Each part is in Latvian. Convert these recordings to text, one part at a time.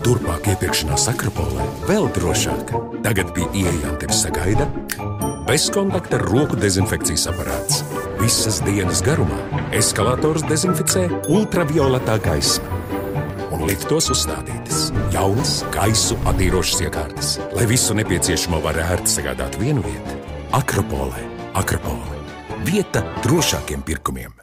Turpmāk iepirkšanās Akropolē vēl drošāk. Tagad pie ieejām tevi sagaida bezkontakta roku dezinfekcijas aparāts. Visas dienas garumā eskalators dezinficē ultravioletā gaisma. Un liftos uzstādītas jaunas gaisu attīrošas iekārtas, lai visu nepieciešamo var ērti sagādāt vienu vietu. Akropolē. Akropole. Vieta drošākiem pirkumiem.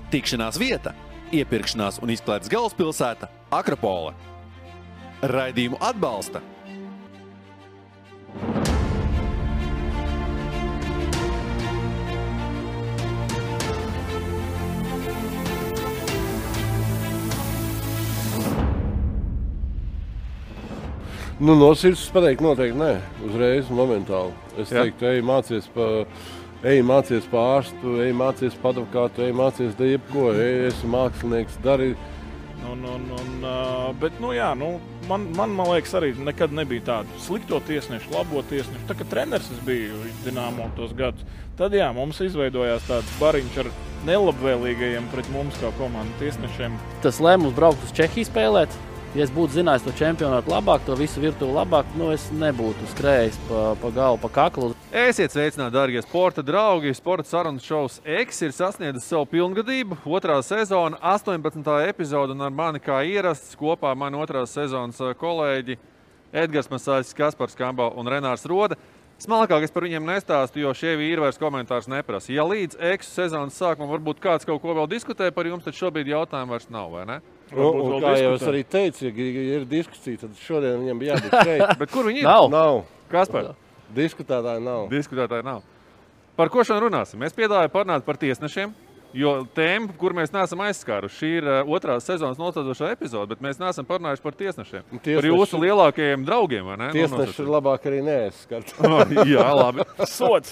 Tikšanās vieta, iepirkšanās un izklaides galvaspilsēta Akropole. Raidījumu atbalsta No sirds pateikt noteikti nē, uzreiz, momentāli. Es teiktu, ej mācies pa ārstu, ej mācies pa advokātu, ej mācies da jebko, esi mākslinieks, dari. Bet, man liekas, arī nekad nebija tādu slikto tiesnešu, labo tiesnešu. Tā kā treneris es biju Dinamo tos gadus, tad mums izveidojās tāds bariņš ar nelabvēlīgajiem pret mums kā komandu tiesnešiem. Tas lēmums braukt uz Čehiju spēlēt. Ja es būtu zinājis to čempionātu labāk, to visu virtuvi labāk, es nebūtu skrējis pa galvu, pa kaklu. Esiet sveicināti, dārgie sporta draugi! Sporta sarunas šovs X ir sasniedzis savu pilngadību. 2. sezona, 18. epizode, un ar mani kā ierasts kopā mani 2. sezonas kolēģi Edgars Masāļs, Kaspars Kambau un Renārs Roda. Smalkāk es par viņiem nestāstu, jo šie vīri vairs komentārus neprasa. Ja līdz X sezonas sākumam varbūt kāds kaut ko vēl diskutē par jums, tad šobrīd jautājumu vairs nav, vai ne? Un kā jau es arī teicu, ja ir diskusija, tad šodien viņam bija jābūt šeit. Bet kur viņi ir? Nav. Kaspar? Diskutētāji nav. Par ko šodien runāsim? Es piedāvāju parunāt par tiesnešiem, jo tēma, kur mēs neesam aizskāruši, šī ir 2. sezonas noslēdzošā epizode, bet mēs neesam parunājuši par tiesnešiem. Par jūsu lielākajiem draugiem, vai ne? Tiesneši ir labāk arī neaizskart. Jā, labi. Sots.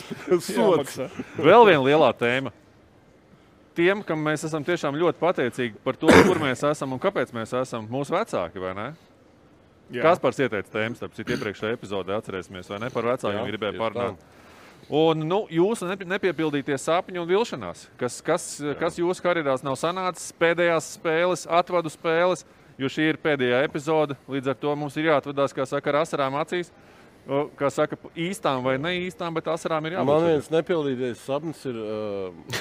Vēl viena lielā tēma. Tiem, kam mēs esam tiešām ļoti pateicīgi par to, kur mēs esam un kāpēc mēs esam, mūsu vecāki, vai ne? Kaspars ieteica tēmas, tāpēc iepriekšējā epizodē atcerēsimies, vai ne? Par vecākiem gribēja parunāt. Un jūsu nepiepildītie sapņi un vilšanās, kas jūsu karjerās nav sanācis, pēdējās spēles, atvadu spēles, jo šī ir pēdējā epizode, līdz ar to mums ir jāatvadās, kā saka, ar asarām acīs. Kā saka, īstām vai neīstām, bet asarām ir jābūt. Man viens nepildītais sapnis ir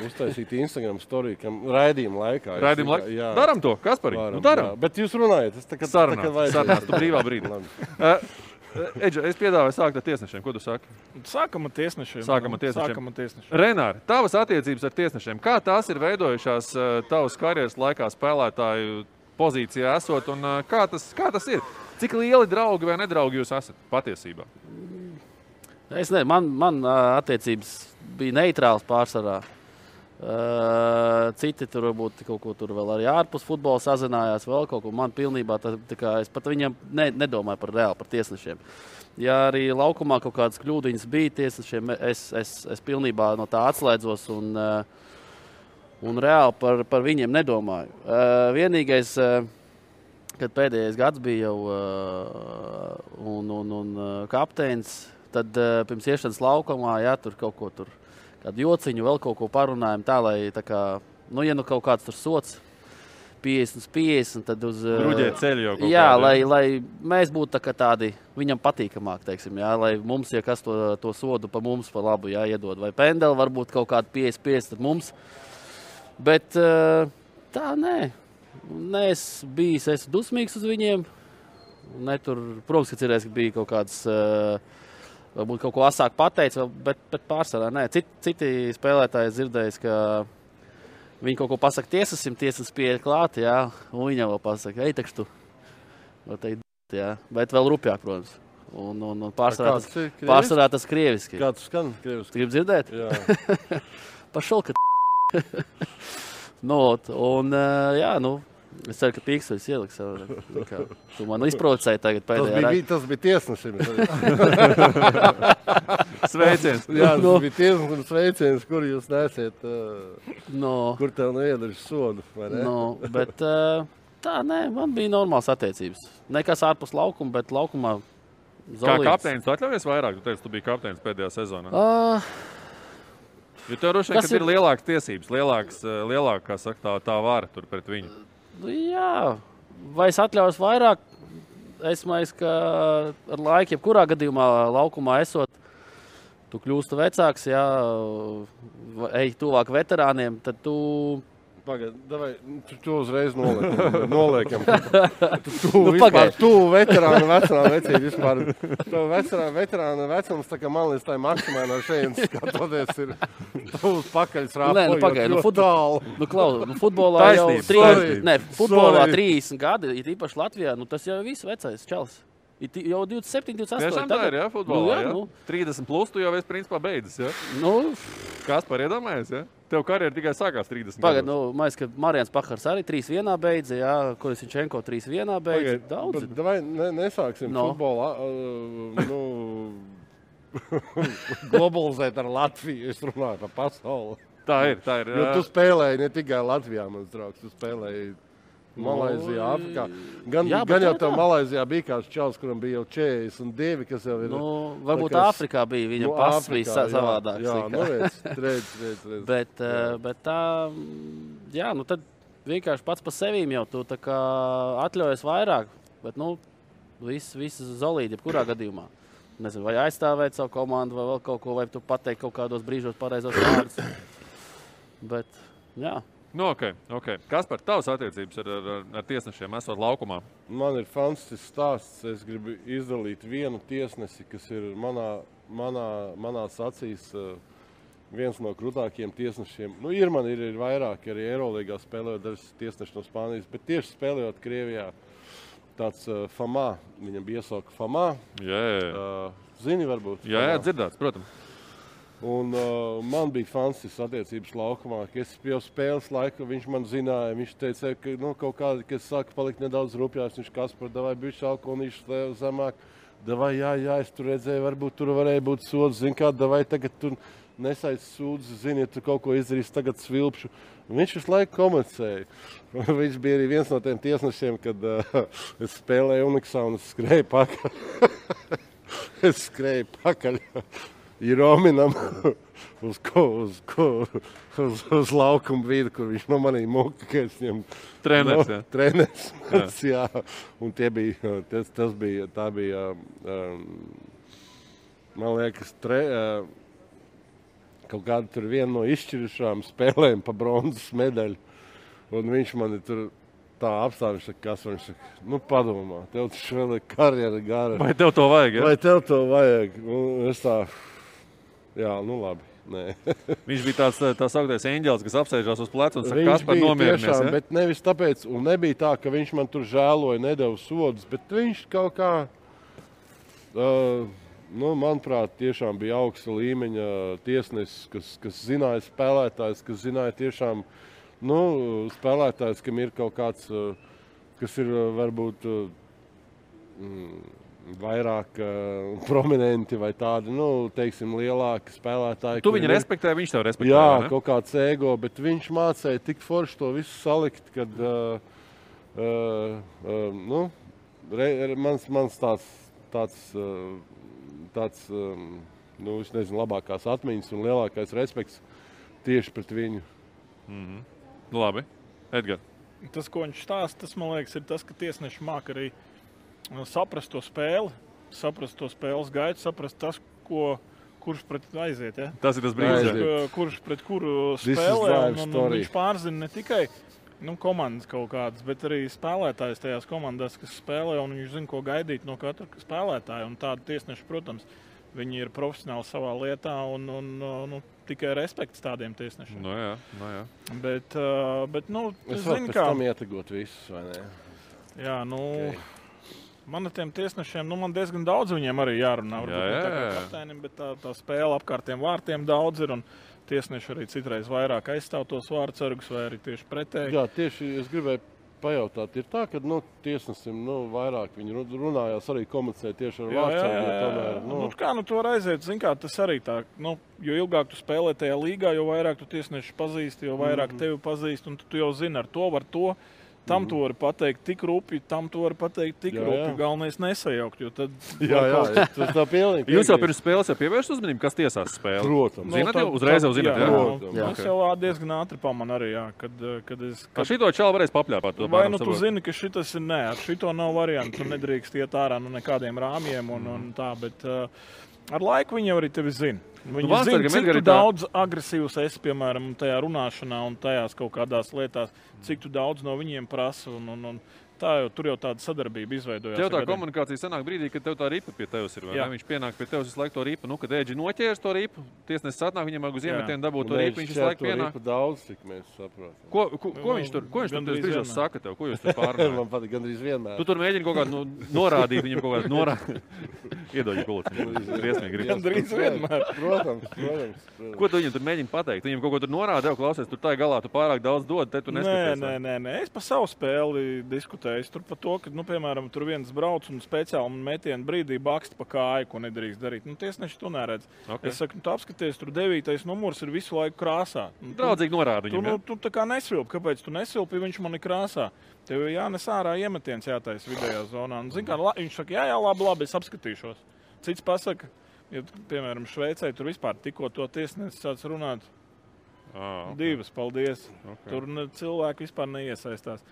uztaisīt Instagram story, raidījuma laikā. Daram to, Kaspari? Daram. Bet jūs runājat. Sarunās, tu brīvā brīdī. Edža, es piedāvāju sākt ar tiesnešiem. Ko tu saki? Sākam ar tiesnešiem. Renāri, tavas attiecības ar tiesnešiem, kā tās ir veidojušās tavas karjeras laikā spēlētāju pozīcijā esot un kā tas ir? Cik lieli draugi vai nedraugi jūs esat patiesībā? Man attiecības bija neitrāls pārsvarā. Citi tur varbūt kaut ko tur vēl arī ārpus futbola sazinājās, vēl kaut ko. Man pilnībā, es pat viņam nedomāju par tiesnešiem. Ja arī laukumā kaut kādas kļūdiņas bija tiesnešiem, es pilnībā no tā atslēdzos un reāli par viņiem nedomāju. Vienīgais, kad pēdējais gads bija jau un kapteinis, tad pirms iešanas laukumā, tur kaut ko tur, kādu jociņu, vēl kaut ko parunājam tā, lai tā kā, ja kaut kāds tur sots 50/50, tad uz... Bruģēt ceļu jau kaut jā, lai mēs būtu tādi viņam patīkamāk, teiksim, lai mums, ja kas to sodu pa mums pa labu, iedod, vai pendeli varbūt kaut kādu 50/50, tad mums, bet tā, nē. Es esmu dusmīgs uz viņiem. Protams, ka cerēs, ka bija kaut kāds, varbūt kaut ko asāk pateicis, bet pārsvarā nē. Citi spēlētāji dzirdējis, ka viņi kaut ko pasaka tiesasim, tiesas pieeja klāt, jā, un viņam vēl pasaka, ej, tekš tu. Jā, bet vēl rupjāk, protams. Un pārsvarā tas krieviski. Kā tu skan krieviski? Gribu dzirdēt? Jā. Pašol, ka jā, es ceru, ka pīkstoļs ieliks. Tu man izprovocēji tagad pēdējā. Tas bija tiesnesim. Sveiciens. Jā, tas bija tiesnesim sveiciens, kur jūs nesiet, kur tev neiedarš sodu, vai ne? Bet tā, nē, man bija normāls attiecības. Nekas ārpus laukuma, bet laukumā Zolīts. Kā kapteinis, tu atļaujies vairāk? Tu teici, tu biji kapteinis pēdējā sezonā. Jo tev droši vien, ka ir lielākas tiesības, lielāka, kā saka, tā vara tur pret viņu. Jā, vai es atļaujos vairāk? Es domāju, ka ar laiku, jebkurā gadījumā laukumā esot, tu kļūsti vecāks, jā, ej tuvāk veterāniem, tad tu... Pagaid, davai, tu uzreiz noliekam. Tu veterāna vecība vispār. Tu veterāna vecums, tā kā man līdz tā maksimāli no šeit skatoties ir tuvs pakaļs rāpojot. Pagaid, futbolā jau 30 gadi, ir īpaši Latvijā, tas jau viss vecais čals. Jau 27, 28. Tiešām tā ir, jā, futbolā, jā? 30 plus tu jau esi principā beidzis, jā? Kaspar iedomājies, jā? Tev karjera tikai sākās 30 Pagad, mājas, ka Marijans Pahars arī 3-1 beidza, jā, Kolesiņčenko 3-1 beidza, daudz. Davai nesāksim futbolā, globalizēt ar Latviju, es runāju par pasauli. Tā ir. Jo tu spēlēji ne tikai Latvijā, mans draugs, tu spēlēji Malaizijā, Afrikā. Gan jau tev Malaizijā bija kāds čals, kuram bija jau 42, kas jau ir... Varbūt Āfrikā bija, viņam pass bija savādāks. Jā, redz. Bet tā, jā, tad vienkārši pats pa sevīm jau tu tā kā atļaujies vairāk, bet, viss zolīdi, jebkurā gadījumā. Nezinu, vai aizstāvēt savu komandu, vai vēl kaut ko, vai tu pateikt kaut kādos brīžos pareizos vārdus. Bet, jā. Ok. Kaspar, tavas attiecības ar tiesnešiem esot laukumā? Man ir fantastisks stāsts. Es gribu izdalīt vienu tiesnesi, kas ir manās acīs viens no krūtākajiem tiesnešiem. Ir vairāk, arī Eirolīgā spēlējot dažas tiesneši no Spānijas, bet tieši spēlējot Krievijā tāds Famā. Viņam bija iesauka Famā. Jā. Zini varbūt? Jā, dzirdēts, protams. Un man bija fantastisks attiecības laukumā, ka es jau spēles laiku, viņš man zināja, viņš teica, ka kaut kādi, kas saka palikt nedaudz rupjās, viņš Kaspar, davai bišķi alkoholīšu zemāk, davai, jā, es tur redzēju, varbūt tur varēja būt sods, zin kā, davai tagad tur nesaic sūdzi, zini, ja tu kaut ko izdarīs, tagad svilpšu. Viņš visu laiku komunicēja. Viņš bija arī viens no tiem tiesnešiem, kad es spēlēju Uniksā un es skrēju pakaļ. Rominam uz laukuma vīdu, kur viņš no manī muka, ka es viņam... Treneris, jā. Un tā bija, man liekas, kaut kāda tur viena no izšķirušām spēlēm pa bronzas medaļu. Un viņš mani tur tā apstāvis, kas viņš saka, padomā, tev taču vēl ir karjera gara. Vai tev to vajag, ja? Vai tev to vajag? Un es tā... Jā, labi. Nē. Viņš bija tāds augtais eņģelis, kas apsēžās uz pleca un saka, Kaspar, nomierinies. Tiešām, bet nevis tāpēc, un nebija tā, ka viņš man tur žēloja, nedeva sodus, bet viņš kaut kā, manuprāt, tiešām bija augsta līmeņa tiesnesis, kas zināja spēlētājs, kas zināja tiešām, spēlētājs, kam ir kaut kāds, kas ir varbūt vairāk prominenti vai tādi, teiksim, lielāki spēlētāji. Tu viņu respektē, viņš tev respektē, jā, vai ne? Kaut kāds ego, bet viņš mācēja tik forši to visu salikt, kad, mans tāds, es nezinu, labākās atmiņas un lielākais respekts tieši pret viņu. Labi. Edgar. Tas, ko viņš stāsta, tas, man liekas, ir tas, ka tiesneši māk arī saprast to spēli, saprast to spēles gaitu, saprast tas, kurš pret aiziet. Ja? Tas ir tas brīdis. Kurš pret kuru spēlē. Un viņš pārzina ne tikai Komandas kaut kādas, bet arī spēlētājs tajās komandās, kas spēlē, un viņš zina, ko gaidīt no katra spēlētāja. Un tādi tiesneši, protams, viņi ir profesionāli savā lietā un tikai respekts tādiem tiesnešiem. No jā. Bet es varu pēc tam ietegot visus, vai ne? Jā, man ar tiem tiesnešiem, man diezgan daudz viņiem arī jārunā. Varbūt tā kā kapteinim, bet tā spēle apkārtiem vārtiem daudz ir, un tiesneši arī citreiz vairāk aizstāv tos vārdsargus, vai arī tieši pretēji. Jā, tieši es gribēju pajautāt, ir tā, ka tiesnesim vairāk viņi runājās, arī komunicēja tieši ar vārdsargu. Tu var aiziet, zin kā, tas arī tā, jo ilgāk tu spēlē tajā līgā, jo vairāk tu tiesneši pazīsti, jo vairāk tevi pazīst, un tu jau zini ar to, var to. Tam tu vari pateikt tik rupi, tam tu vari pateikt tik rupi. Galvenais nesajaukt, jo tad... Tas tā pilnīgi. Jūs jau pirms spēles pievērst uzmanību, kas tiesās spēli? Protams. Zināt jau? Uzreiz jau zināt, jā? Es jau diezgan ātri pamanu arī, kad es... Šito čalu varēs papļāpāt? Vai tu zini, ka šitas ir ar šito nav variantu, tu nedrīkst iet ārā nekādiem rāmjiem un tā, bet ar laiku viņi jau arī tevi zina. Viņi zina, cik tu daudz agresīvs esi, piemēram, tajā runāšanā un tajās kaut kādās lietās, cik tu daudz no viņiem prasa un tur jau tāda sadarbība izveidojās. Tev tā komunikācija sanāk brīdī, kad tev tā ripa pie tevis ir, vai ne? Viņš pienāk pie tevis visu laiku to ripu, kad Ēģi noķērs to ripu, tiesnesis atnāk, viņam uz iemetienu dabūt to ripu, viņš visu laiku pienāk. Daudz, cik mēs saprotam. Ko viņš tur brīžos saka tev? Ko jūs tur pārunājat? Man patīk gandrīz vienmēr. Tu tur mēģini kaut kādu norādīt, viņam kaut kādu norādīt. Iedoģi kulci. Briesmīgi. Gandrīz vienmēr. Protams. Ko tu viņam tur mēģini pateikt? Viņam kaut ko tur norāda, jau klausies, tur tā galā tu pārāk daudz dod, te tu neskaties. Nē. Es pa savu spēli diskutēju. Tur par to, ka, piemēram, tur viens brauc un speciāli metienu brīdī baksta pa kāju, ko nedrīkst darīt. Tiesneši to neredz. Okay. Es saku, tu apskaties, tur 9. numurs ir visu laiku krāsā. Draudzīgi norāda viņam, tu tā kā nesvilpi. Kāpēc tu nesvilpi, viņš man ir krāsā? Tev jānes ārā iemetiens jātais vidējā zonā. Un, zin kā, viņš saka, jā, labi, es apskatīšos. Cits pasaka, ja, piemēram, Šveicē tur vispār tikko to tiesnesis sāc runāt. Divas, paldies. Okay. Tur cilvēki vispār neiesaistās.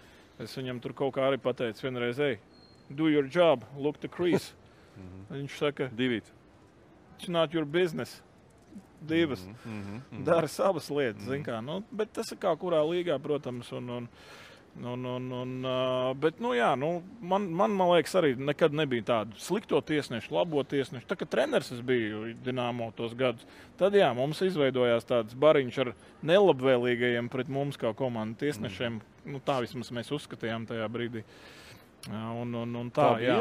Es viņam tur kaut kā arī pateicu vienreiz, do your job, look the crease. Viņš saka, it's not your business. Divas. Dara savas lietas, zin kā. Bet tas ir kā kurā līgā, protams. Bet, man liekas, arī nekad nebija tādu slikto tiesnešu, labo tiesnešu. Tā kā treneris es biju Dinamo tos gadus, tad jā, mums izveidojās tāds bariņš ar nelabvēlīgajiem pret mums kā komandu tiesnešiem. Tā vismaz mēs uzskatījām tajā brīdī. Un tā, jā.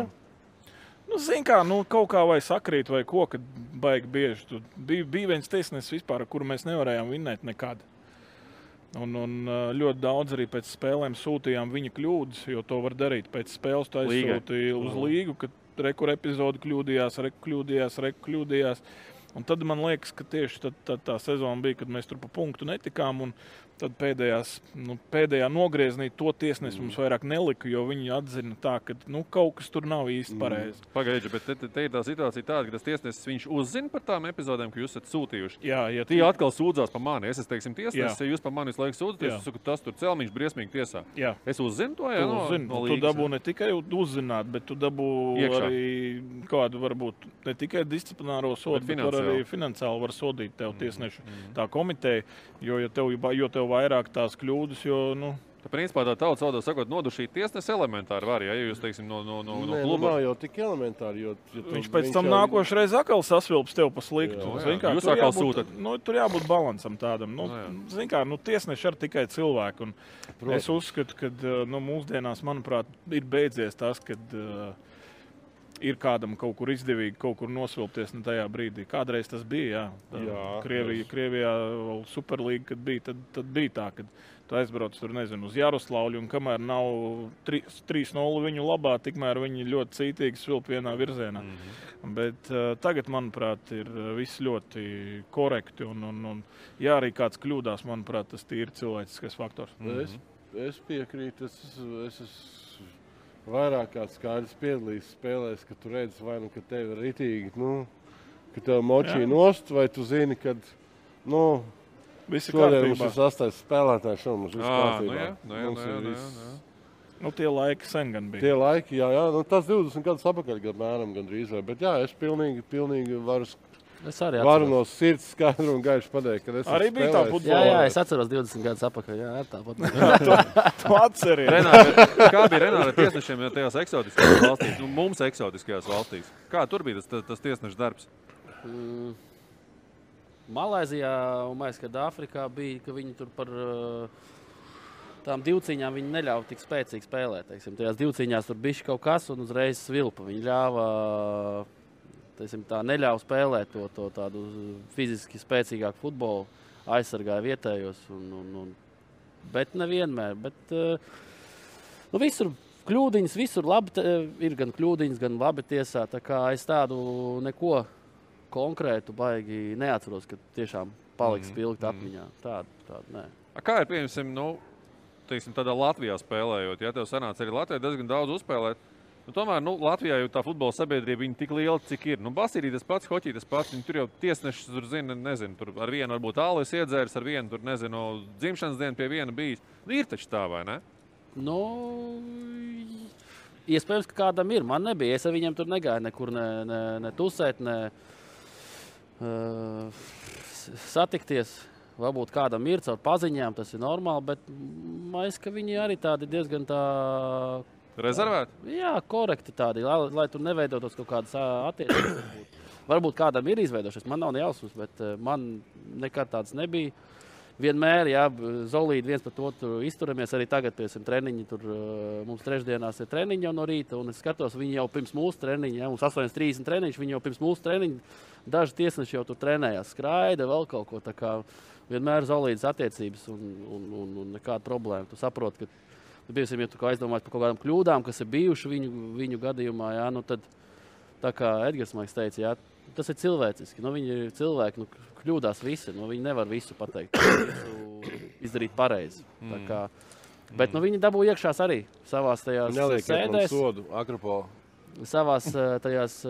Zin kā, kaut kā vai sakrīt vai ko, kad baigi bieži. Bija viens tiesnesis vispār, ar kuru mēs nevarējām vinnēt nekad. Un ļoti daudz arī pēc spēlēm sūtījām viņa kļūdas, jo to var darīt. Pēc spēles tu aizsūtīji uz līgu, kad rekur epizodi kļūdījās. Un tad man liekas, ka tieši tā sezona bija, kad mēs tur pa punktu netikām. Un tad pēdējā nogrieznī to tiesnesi mums vairāk nelika, jo viņi atzina tā, ka kaut kas tur nav īsti pareizi. Pagaidži, bet te ir tā situācija tāda, ka tas tiesnesis viņš uzzina par tām epizodēm, ka jūs esat sūtījuši. Jā, Tie atkal sūdzās par mani. Es teiksim tiesnesis, ja jūs par mani visu laiku sūdzaties, es saku, tas tur celmiņš briesmīgi tiesā. Jā. Es uzzinu to, jā? No līgas, tu dabū ne tikai uzzināt, bet tu dabū iekšā. Arī kādu varbūt ne tikai disciplināro sodu, bet arī finansiāli var sodīt tev tiesnešu tā komiteja, jo tev vairāk tās kļūdas, jo, Tā principā tā tautas valodā sakot, nodušīt tiesnesi elementāri var, ja jūs, teiksim, no kluba. Nav jau tik elementāri, jo... Viņš pēc tam nākošreiz atkal sasvilps tev pa sliktu. Jūs atkal sūtat. Tur jābūt balansam tādam. Zin kā, tiesneši ar tikai cilvēku. Un es uzskatu, ka mūsdienās, manuprāt, ir beidzies tas, kad ir kādam kaut kur izdevīgi kaut kur nosvilpties tajā brīdī. Kādreiz tas bija, jā. Krievijā Superlīga, kad bija, tad bija tā, kad tu aizbrauc tur, nezinu, uz Jaroslavļu, un kamēr nav 3-0 viņu labā, tikmēr viņi ļoti cītīgi svilp vienā virzienā. Bet tagad, manuprāt, ir viss ļoti korekti, un ja arī kāds kļūdās, manuprāt, tas ir cilvēciskais faktors. Es piekrītu, es vairāk kāds skaidrs piedalīs spēlēs, ka tu redzi vai ka tev ir ritīgi, ka tev močī nost, vai tu zini, kad, šodien mums ir 8. spēlētājs, un mums viss kārtībā. Tie laiki sen gan bija. Tie laiki, jā, tas 20 gadus apakaļ, apmēram gandrīz vai, bet jā, es pilnīgi varu Es arī varu no sirds skaidru un gaišu pateikt, ka es arī biju tā futbolā. Jā, es atceros 20 gadus atpakaļ. Jā, tāpat. Tu atceries. Kā bija Renāra tiesnešiem tajās eksotiskajās valstīs, nu, mums eksotiskajās valstīs? Kā tur bija tas tiesneša darbs? Malaizijā un mēs, kad Āfrikā bija, ka viņi tur par tām divcīņām viņi neļauj tik spēcīgi spēlēt. Teiksim. Tajās divcīņās tur bišķi kaut kas un uzreiz svilpa. Viņi ļāva... Tā neļauj spēlēt to tādu fiziski spēcīgāku futbolu, aizsargāja vietējos. Bet nevienmēr. Visur kļūdiņas, visur labi, ir gan kļūdiņas, gan labi tiesā. Tā kā es tādu neko konkrētu baigi neatceros, ka tiešām paliks spilgt atmiņā. Tādu nē. Kā ir, pieņemsim, tādā Latvijā spēlējot? Ja tev sanāca arī Latvijā diezgan daudz uzspēlēt, tomēr Latvijā jau tā futbola sabiedrība viņa tik liela, cik ir. Basīrī tas pats, hoķī tas pats. Viņi tur jau tiesnešus tur zina, nezinu, tur ar vienu varbūt ālis iedzērs, ar vienu tur, nezinu, dzimšanas dienu pie viena bijis. Ir taču tā, vai ne? Iespējams, ka kādam ir. Man nebija. Es ar viņiem tur negāju nekur ne tusēt, ne satikties. Varbūt kādam ir caur paziņām, tas ir normāli, bet man ka viņi arī tādi diezgan tā... Rezervēti? Jā, korekti tādi, lai tur neveidotos kaut kādas attiecības. Varbūt kādam ir izveidošies, man nav nejausmas, bet man nekad tāds nebija. Vienmēr, jā, zolīdi viens par otru izturamies, arī tagad, piemēram, treniņi, tur mums trešdienās ir treniņi jau no rīta, un es skatos, viņi jau pirms mūsu treniņa, jā, mums 8:30 treniņš, viņi jau pirms mūsu treniņa, daži tiesneši jau tur trenējās, skraida, vēl kaut ko, tā kā vienmēr zolīdas attiecības un nekāda problēma. Tu saproti, ka ja tu aizdomājies par kaut kādām kļūdām, kas ir bijuši viņu gadījumā, jā, tad, tā kā Edgars Maiks teica, jā, tas ir cilvēciski. Viņi ir cilvēki, kļūdās visi, viņi nevar visu pateikt, visu izdarīt pareizi. Bet viņi dabū iekšās arī savās tajās sēdēs. Sodu, Akropola. Savās tajās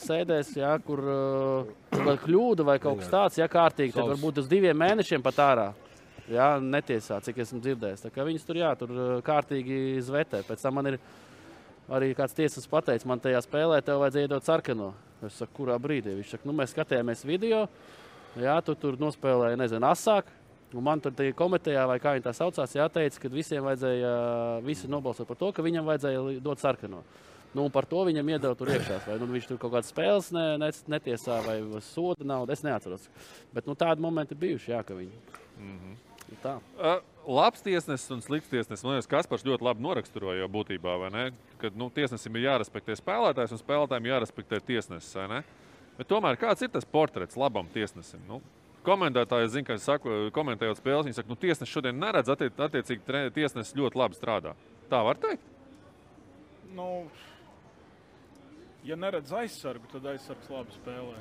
sēdēs, jā, kur kļūda vai kaut kas tāds, jā, kārtīgi, tad varbūt uz 2 mēnešiem pat ārā. Jā, netiesā, cik esmu dzirdējis. Tā kā viņus tur, jā, tur kārtīgi zvetē. Pēc tam man ir arī kāds tiesas pateicis, man tajā spēlē tev vajadzēja iedot sarkano. Es saku, kurā brīdī? Viņš saka, mēs skatījāmies video, jā, tu tur nospēlēji, nezinu, asāk. Un man tur komitejā, vai kā viņi tā saucās, jāteica, ka visiem vajadzēja, visi nobalsot par to, ka viņam vajadzēja dot sarkano. Un par to viņam iedeva tur iekšās. Vai viņš tur kaut kādas spēles netiesā vai soda naudu, es neatceros. Bet tādi momenti bijuši, jā, ka viņi... Tā. Labs tiesnesis un slikts tiesnesis. Man liekas, Kaspars ļoti labi noraksturoja jau būtībā, vai ne? Kad tiesnesim ir jārespektē spēlētājs un spēlētājiem jārespektē tiesnesis, vai ne? Bet tomēr kāds ir tas portrets labam tiesnesim? Komentētāji, zinu, ka komentējot spēles, viņi saka, tiesnesis šodien neredz, attiecīgi tiesnesis ļoti labi strādā. Tā var teikt? Ja neredz aizsargu, tad aizsargs labi spēlē.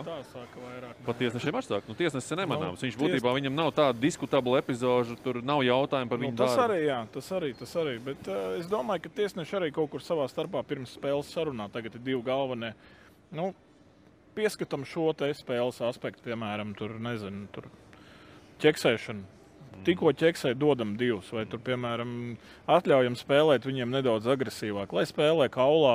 Tā sāka vairāk. Pat tiesnešiem atsāk. Tiesnesis ir nemanāms. Viņš būtībā viņam nav tāda diskutabla epizoža, tur nav jautājumu par viņu darbu. Tas arī, jā, tas arī. Bet es domāju, ka tiesneši arī kaut kur savā starpā pirms spēles sarunā. Tagad ir 2 galvenie. Pieskatam šo te spēles aspektu, piemēram, tur ķeksēšanu. Tikko ķeksē dodam 2, vai tur, piemēram, atļaujam spēlēt viņiem nedaudz agresīvāk, lai spēlē kaulā,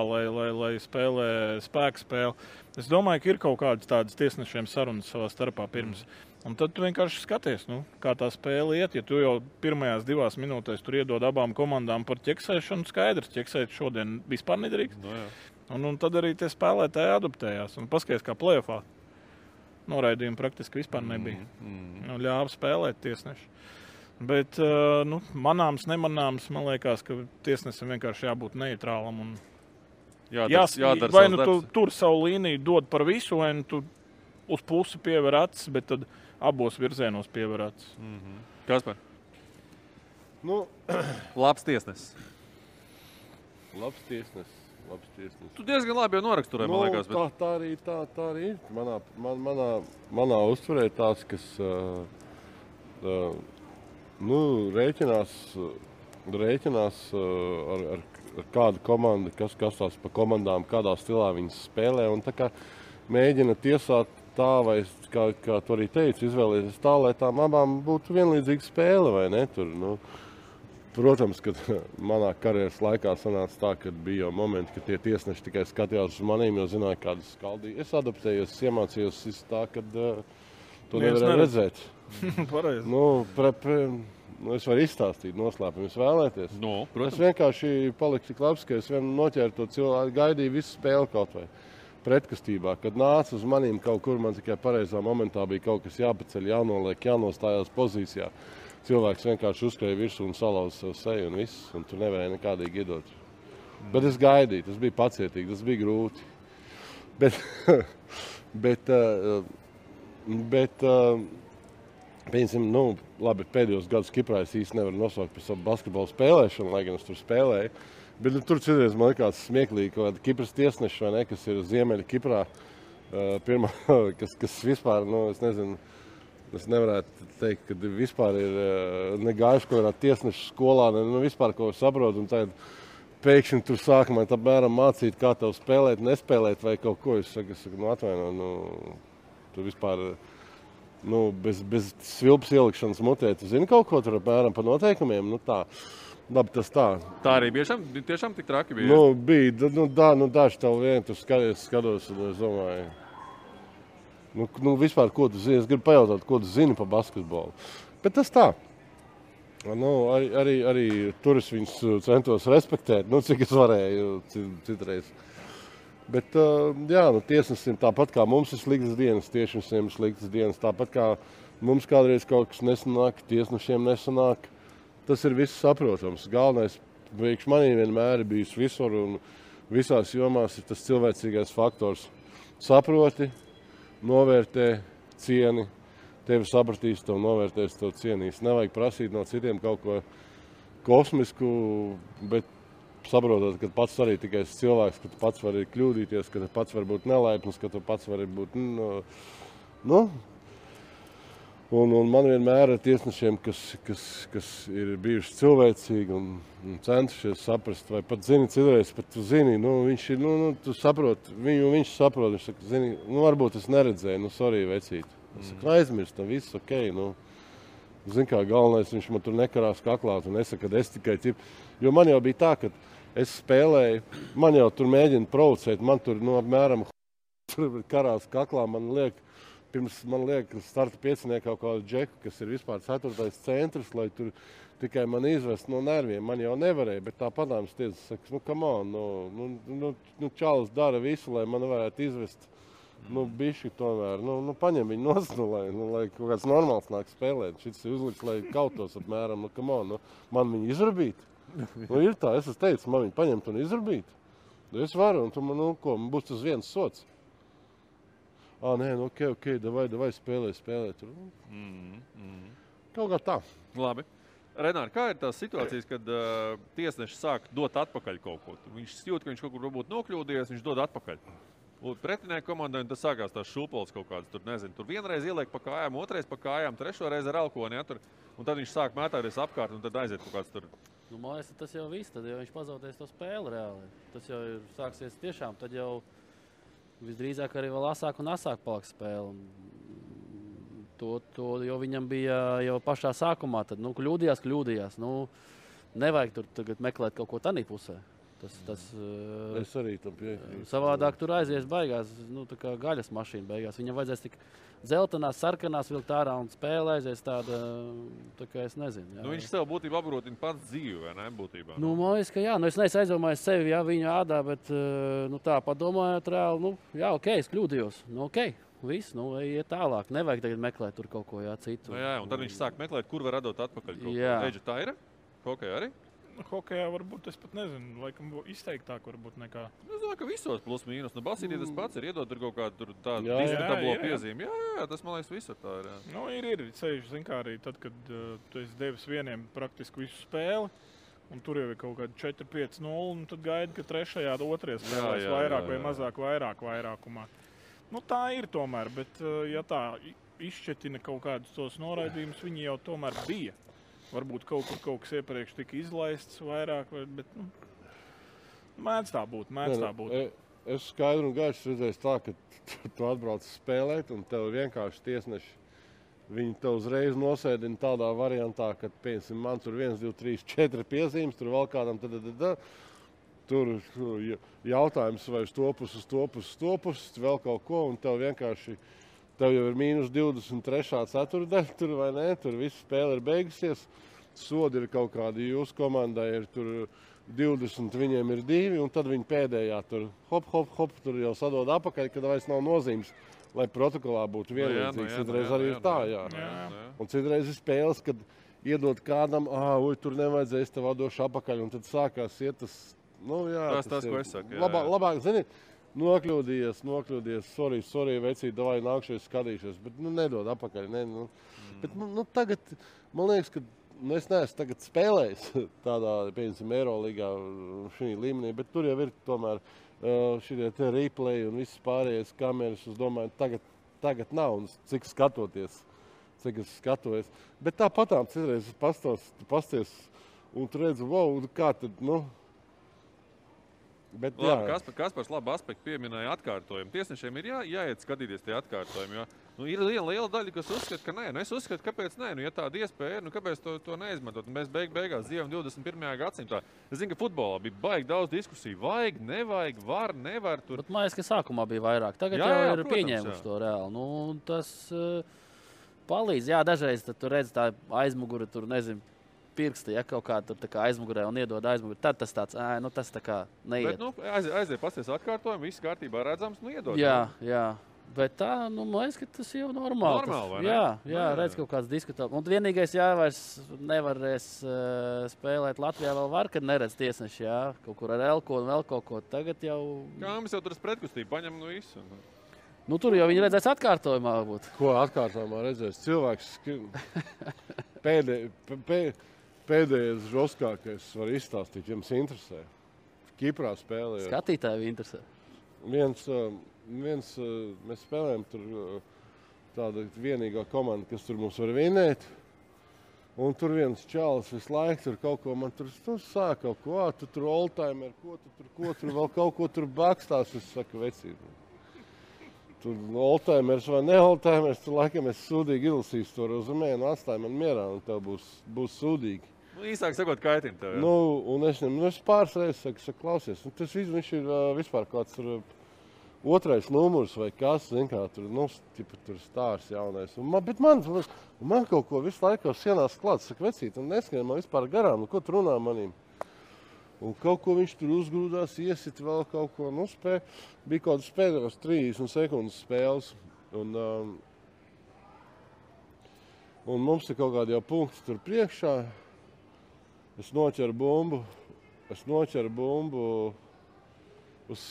lai spēlē spēku spēli. Es domāju, ka ir kaut kādas tādas tiesnešiem sarunas savā starpā pirms. Un tad tu vienkārši skaties, kā tā spēle iet. Ja tu jau pirmajās 2 minūtēs tur iedod abām komandām par ķeksēšanu, skaidrs, ķeksēt šodien vispār nedrīkst. Un tad arī tie spēlētāji adaptējās. Un paskaties, kā play-offā. Noraidījumi praktiski vispār nebija. Ļāva spēlēt tiesneši. Bet manāms, nemanāms, man liekas, ka tiesnesim vienkārši jābūt neitrālam. Un jādara vai tu tur savu līniju dod par visu, vai tu uz pusi piever acis, bet tad abos virzienos piever acis. Kaspar? Labs tiesnesis. Labs tiesnesis. Tu diezgan labi jau noraksturēji, man liekas. Bet... Tā arī ir. Manā uztverē tās, kas rēķinās ar kādu komandu, kas tās pa komandām, kādā stilā viņas spēlē. Un tā kā mēģina tiesāt tā, vai kā tu arī teici, izvēlēties tā, lai tām abām būtu vienlīdzīga spēle, vai ne? Tur, Protams, ka manā karjeras laikā sanāca tā, ka bija jau momenti, ka tie tiesneši tikai skatījās uz manīm, jo zināja, kādas skaldīja. Es adaptējos, iemācījos tā, ka to nevarēja redzēt. Pareizi. Es varu izstāstīt noslēpumus, vēlēties. Es vienkārši paliku tik labs, ka es vien noķēru to cilvēku, gaidīju visu spēli kaut vai pretkastībā. Kad nāca uz manīm kaut kur, man tikai pareizā momentā bija kaut kas jāpaceļ, jānoliek, jānostājās pozīcijā. Cilvēks vienkārši uzskrēja virsū un salauza savu seju un viss, un tur nevarēja nekādīgi iedot. Bet es gaidīju, tas bija pacietīgi, tas bija grūti. Pieņemsim, labi, pēdējos gadus Kiprā es īsti nevaru nosaukt par savu basketbolu spēlēšanu, lai gan es tur spēlēju. Bet tur citreiz man likās smieklīgi, ka Kipras tiesneši, vai ne, kas ir Ziemeļa Kiprā, pirmā, kas vispār, es nezinu, es nevarētu teikt, ka vispār ir negājuši kaut kādā tiesnešu skolā, vispār ko saprot, un tad pēkšņi tur sākumā apmēram mācīt, kā tev spēlēt, nespēlēt vai kaut ko. Es saku, atvaino, tu vispār, bez svilpas ielikšanas mutē, tu zini kaut ko tur apmēram pa noteikumiem, tā. Labi, tas tā. Tā arī tiešām tik traki bija? Bija, daži tev vien, tu skatos, un es domāju, vispār, ko tu zini? Es gribu pajautāt, ko tu zini par basketbolu. Bet tas tā. Arī tur es viņus centos respektēt, cik es varēju citreiz. Bet, tiesnesim tāpat kā mums ir sliktas dienas, tiešnesiem ir sliktas dienas. Tāpat kā mums kādreiz kaut kas nesanāk, tiesnešiem nesanāk. Tas ir viss saprotams. Galvenais priekš manī vienmēr ir bijis visur un visās jomās ir tas cilvēcīgais faktors. Saproti, novērtē, cieni, tevi sapratīs, tev novērtēs, tev cienīs. Nevajag prasīt no citiem kaut ko kosmisku, bet saprotot, ka pats arī tikai esi cilvēks, ka tu pats vari kļūdīties, ka tu pats vari būt nelaipns, ka tu pats vari būt, Un man vienmēr ar tiesnešiem, kas ir bijuši cilvēcīgi un centušies saprast, vai pat zini, citreiz pat tu zini, viņš ir, tu saproti, viņš saprot, viņš saka, zini, varbūt es neredzēju, sorry, vecīt. Es saku, aizmirstam, viss ok, zini kā, galvenais, viņš man tur nekarās kaklā un nesaka, ka es tikai jo man jau bija tā, ka es spēlēju, man jau tur mēģina provocēt, man tur, apmēram, karās kaklā, Pirms man liek starta pieciniekā kaut kādu džeku, kas ir vispār 4. centrs, lai tur tikai man izvest no nerviem. Man jau nevarēja, bet tā padāmas tiesa saka, come on, čalis dara visu, lai man varētu izvest, bišķi tomēr, paņem viņu nost, lai kaut kāds normāls nāk spēlēt. Šis ir uzliks, lai kautos apmēram, come on, man viņu izrabīt. Ir tā, es teicu, man viņu paņemt un izrabīt. Es varu, un tu man, man būs tas viens sots. Nē, ok, davai spēlē. Kaut kā tā. Labi. Renāri, kā ir tās situācijas, kad tiesneši sāk dot atpakaļ kaut ko? Viņš jūt, ka viņš kaut kur varbūt nokļūdies, viņš dod atpakaļ. Pretinieku komandai tas sākās tās šūpoles kaut kādas, tur vienreiz ieliek pa kājām, otrais pa kājām, trešo reizi ar elkoni, un tad viņš sāk mētāties apkārt, un tad aiziet kaut kāds tur. Man liekas, tas jau viss, tad jau viņš pazaudēs to spēli reāli. Tas jau ir sāksies tiešām, tad jau visdrīzāk arī vēl asāk un asāk paliks spēle. To jau viņam bija jau pašā sākumā. Tad, kļūdījās. Nevajag tur tagad meklēt kaut ko tādā pusē. Es arī tam piekrītu. Savādāk tur aizies baigās, tā kā gaļas mašīna beigās. Viņam vajadzēs tik dzeltenās, sarkanās vilkt ārā un spēle aizies tāda, tā kā es nezinu. Jā. Viņš sev būtībā apgrotina pats dzīvi, vai ne, būtībā? Man liekas, ka jā. Es neesmu aizdomājis sevi, viņa ādā, bet tā padomājot reāli, ok, es kļūdījos. Ok, viss, iet tālāk. Nevajag tagad meklēt tur kaut ko citu. Jā, un tad viņš sāk meklēt, kur var radot atpakaļ kaut ko. Eģi, tā ir? Hokejā arī? Hokejā varbūt es pat nezinu, laikam izteiktāk varbūt nekā. Es domāju, ka visos plus mīnus. Basītī tas pats ir iedot tur kaut kādu tādu diskutablo piezīmi. Jā, tas man liekas visur tā ir. Ir. Ceļš, zin kā arī tad, kad tu esi devis vieniem praktiski visu spēli, un tur jau ir kaut kādi 4-5-0, un tad gaidi, ka trešajā otrais spēlēs vairāk vai mazāk vairākumā. Tā ir tomēr, bet ja tā izšķetina kaut kādus tos noraidījumus, viņi jau tomēr bija. Varbūt kaut kas iepriekš tika izlaists vairāk, bet mēdz tā būt. Es skaidru un gaišu redzēju tā, ka tu atbrauc spēlēt un tev vienkārši tiesneši viņi te uzreiz nosēdina tādā variantā, ka, piemēram, man tur 1, 2, 3, 4 piezīmes, tur vēl kādam tur jautājums vai uz to pusi, vēl kaut ko, un tev vienkārši, tev jau ir mīnus 23. ceturdaļa, tur vai ne, tur viss spēle ir beigusies, sodi ir kaut kādi, jūsu komandai ir tur 20, viņiem ir 2, un tad viņi pēdējā tur hop, tur jau sadod apakaļ, kad vairs nav nozīmes, lai protokolā būtu vienlīdzīgs. Citreiz arī ir tā, jā. Un citreiz ir spēles, kad iedod kādam, tur nevajadzēs, tev došu apakaļ, un tad sākās iet tas, tas ko es saku. Labāk, zini, nokļūdījies, sorry, vecīt, davai nākšies skatīšies, bet, nedod apakaļ, Bet, tagad, man liekas, ka es neesmu tagad spēlējis tādā, piemēram, Eirolīgā šī līmenī, bet tur jau ir tomēr šitie te replay un visas pārējais kameras, es domāju, tagad nav, un cik es skatojos. Bet tāpatām citreiz pasties, un tu redzi, kā tad, Bet, labi, Kaspars labu aspektu pieminēja atkārtojumu. Tiesnešiem ir jāiet skatīties tie atkārtojumi, jo ir liela daļa, kas uzskata, ka nē. Es uzskatu, kāpēc nē. Ja tāda iespēja ir, kāpēc to neizmantot? Mēs beigās dzīvojam 21. gadsimtā. Es zinu, ka futbolā bija baigi daudz diskusiju. Vajag, nevajag, var, nevar. Tur. Bet man liekas, ka sākumā bija vairāk. Tagad jau ir pieņēmuši to reāli. Tas palīdz. Jā, dažreiz tu redzi tā aizmuguri, tur nezinu. Pirksti, ja kaut kā tur aizmugurē un iedod aizmugurē, tad tas tāds, tas tā kā neiet. Bet, aiziet pasties atkārtojumu, viss kārtībā redzams, iedod. Jā. Bet tā, man liekas, ka tas jau normāli. Vai ne? Jā, redz kaut kāds diskutā. Un vienīgais, vairs nevarēs spēlēt Latvijā vēl var, kad neredz tiesneši, kaut kur ar elko un vēl kaut ko. Tagad jau... Kā mēs jau tur pretkustību paņem visu. Tur jau viņi redzēs atkārtojumā varbūt. Ko atkārtojumā redzēs? Cilvēks pēdējais žoskākais var izstāstīt, jums interesē. Kiprā spēlējot. Skatītāji interesē. Mēs spēlējam tur tāda vienīgā komanda, kas tur mums var vinēt. Un tur viens čalis visu laiku tur kaut ko man tur sāk kaut ko, tu tur oldtimer, ko tur vēl kaut ko tur bakstās, es saku vecību. Tur oldtimers vai ne oldtimers, tur laikam es sūdīgi izlasīšu to rezumē un atstāju man mierā, un tev būs sūdīgi. Īsāk sakot, kaitina tev. Un es pāris reizes saku, klausies, un tas viņš ir vispār kāds tur otrais numurs vai kas, zin kā, tur stārs jaunais. Bet man kaut ko visu laiku sienās klāts, saka, vecīt, un neskrien man vispār garām, ko tu runā manīm. Un kaut ko viņš tur uzgrūdās, iesit vēl kaut ko, bija kaut kāds pēdējos 30 sekundes spēles. Un mums ir kaut kādi jau punkti tur priekšā. Es noķeru bumbu uz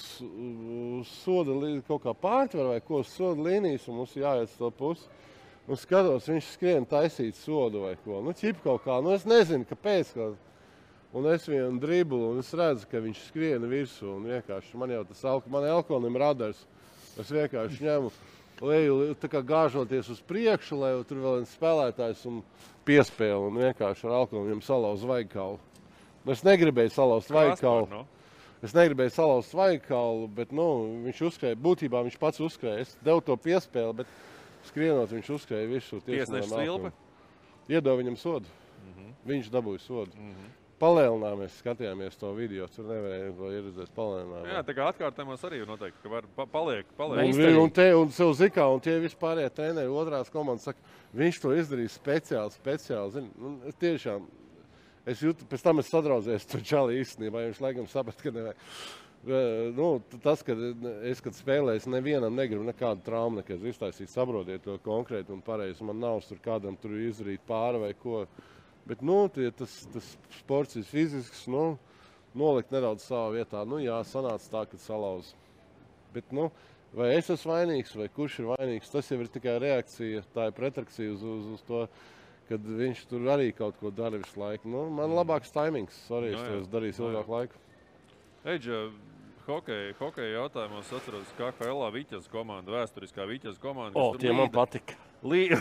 soda kaut kā pārtver vai ko, uz soda līnijas, un mums jāiet uz to pusi. Un skatos, viņš skrien taisīt sodu vai ko. Ķip kaut kā, es nezinu, kāpēc. Un es vienu driblu, un es redzu, ka viņš skriena virsū, un vienkārši man jau man elkonim radars. Es vienkārši ņemu leju, tā kā gāžoties uz priekšu, lai tur vēl viens spēlētājs un piespēle, un vienkārši ar elkonim salauz vaigkaulu. Es negribēju salauzt vaigkaulu. Bet, viņš uzskrēja, būtībā viņš pats uzskrēja. Es devu to piespēli, bet skrienot viņš uzskrēja virsū. Tiesneša svilpe? Iedod viņam sodu. Viņš dabūja sodu. Palēlinājāmies, skatījāmies to video, tur nevarēja to ieredzēt palēlinājumā. Jā, tā kā atkārtējumos arī noteikti, ka var paliek. Un sev zikā, un tie vispārējie treneri otrās komandas saka, viņš to izdarīja speciāli. Zini, tiešām, es jūtu, pēc tam es sadraudzējos to čali īstenībā, viņš laikam saprat, ka nevajag. Tas, kad spēlēju, es nevienam negribu nekādu traumu, nekad iztaisīt, saprotiet to konkrēti un pareizi. Man nav tur kādam tur izdarīt pāri vai ko. Bet, tas sports ir fizisks, nolikt nedaudz savā vietā. Jā, sanāca tā, kad salauz. Bet, vai es esmu vainīgs, vai kurš ir vainīgs, tas jau ir tikai reakcija, tā ir pretrakcija uz to, kad viņš tur arī kaut ko dara visu laiku. Man labāks taimings, es to darīju ilgāku laiku. Eidža, hokeja jautājumos atceros KHL-ā Viķas komanda, vēsturiskā Viķas komanda. Tie man patika. Līda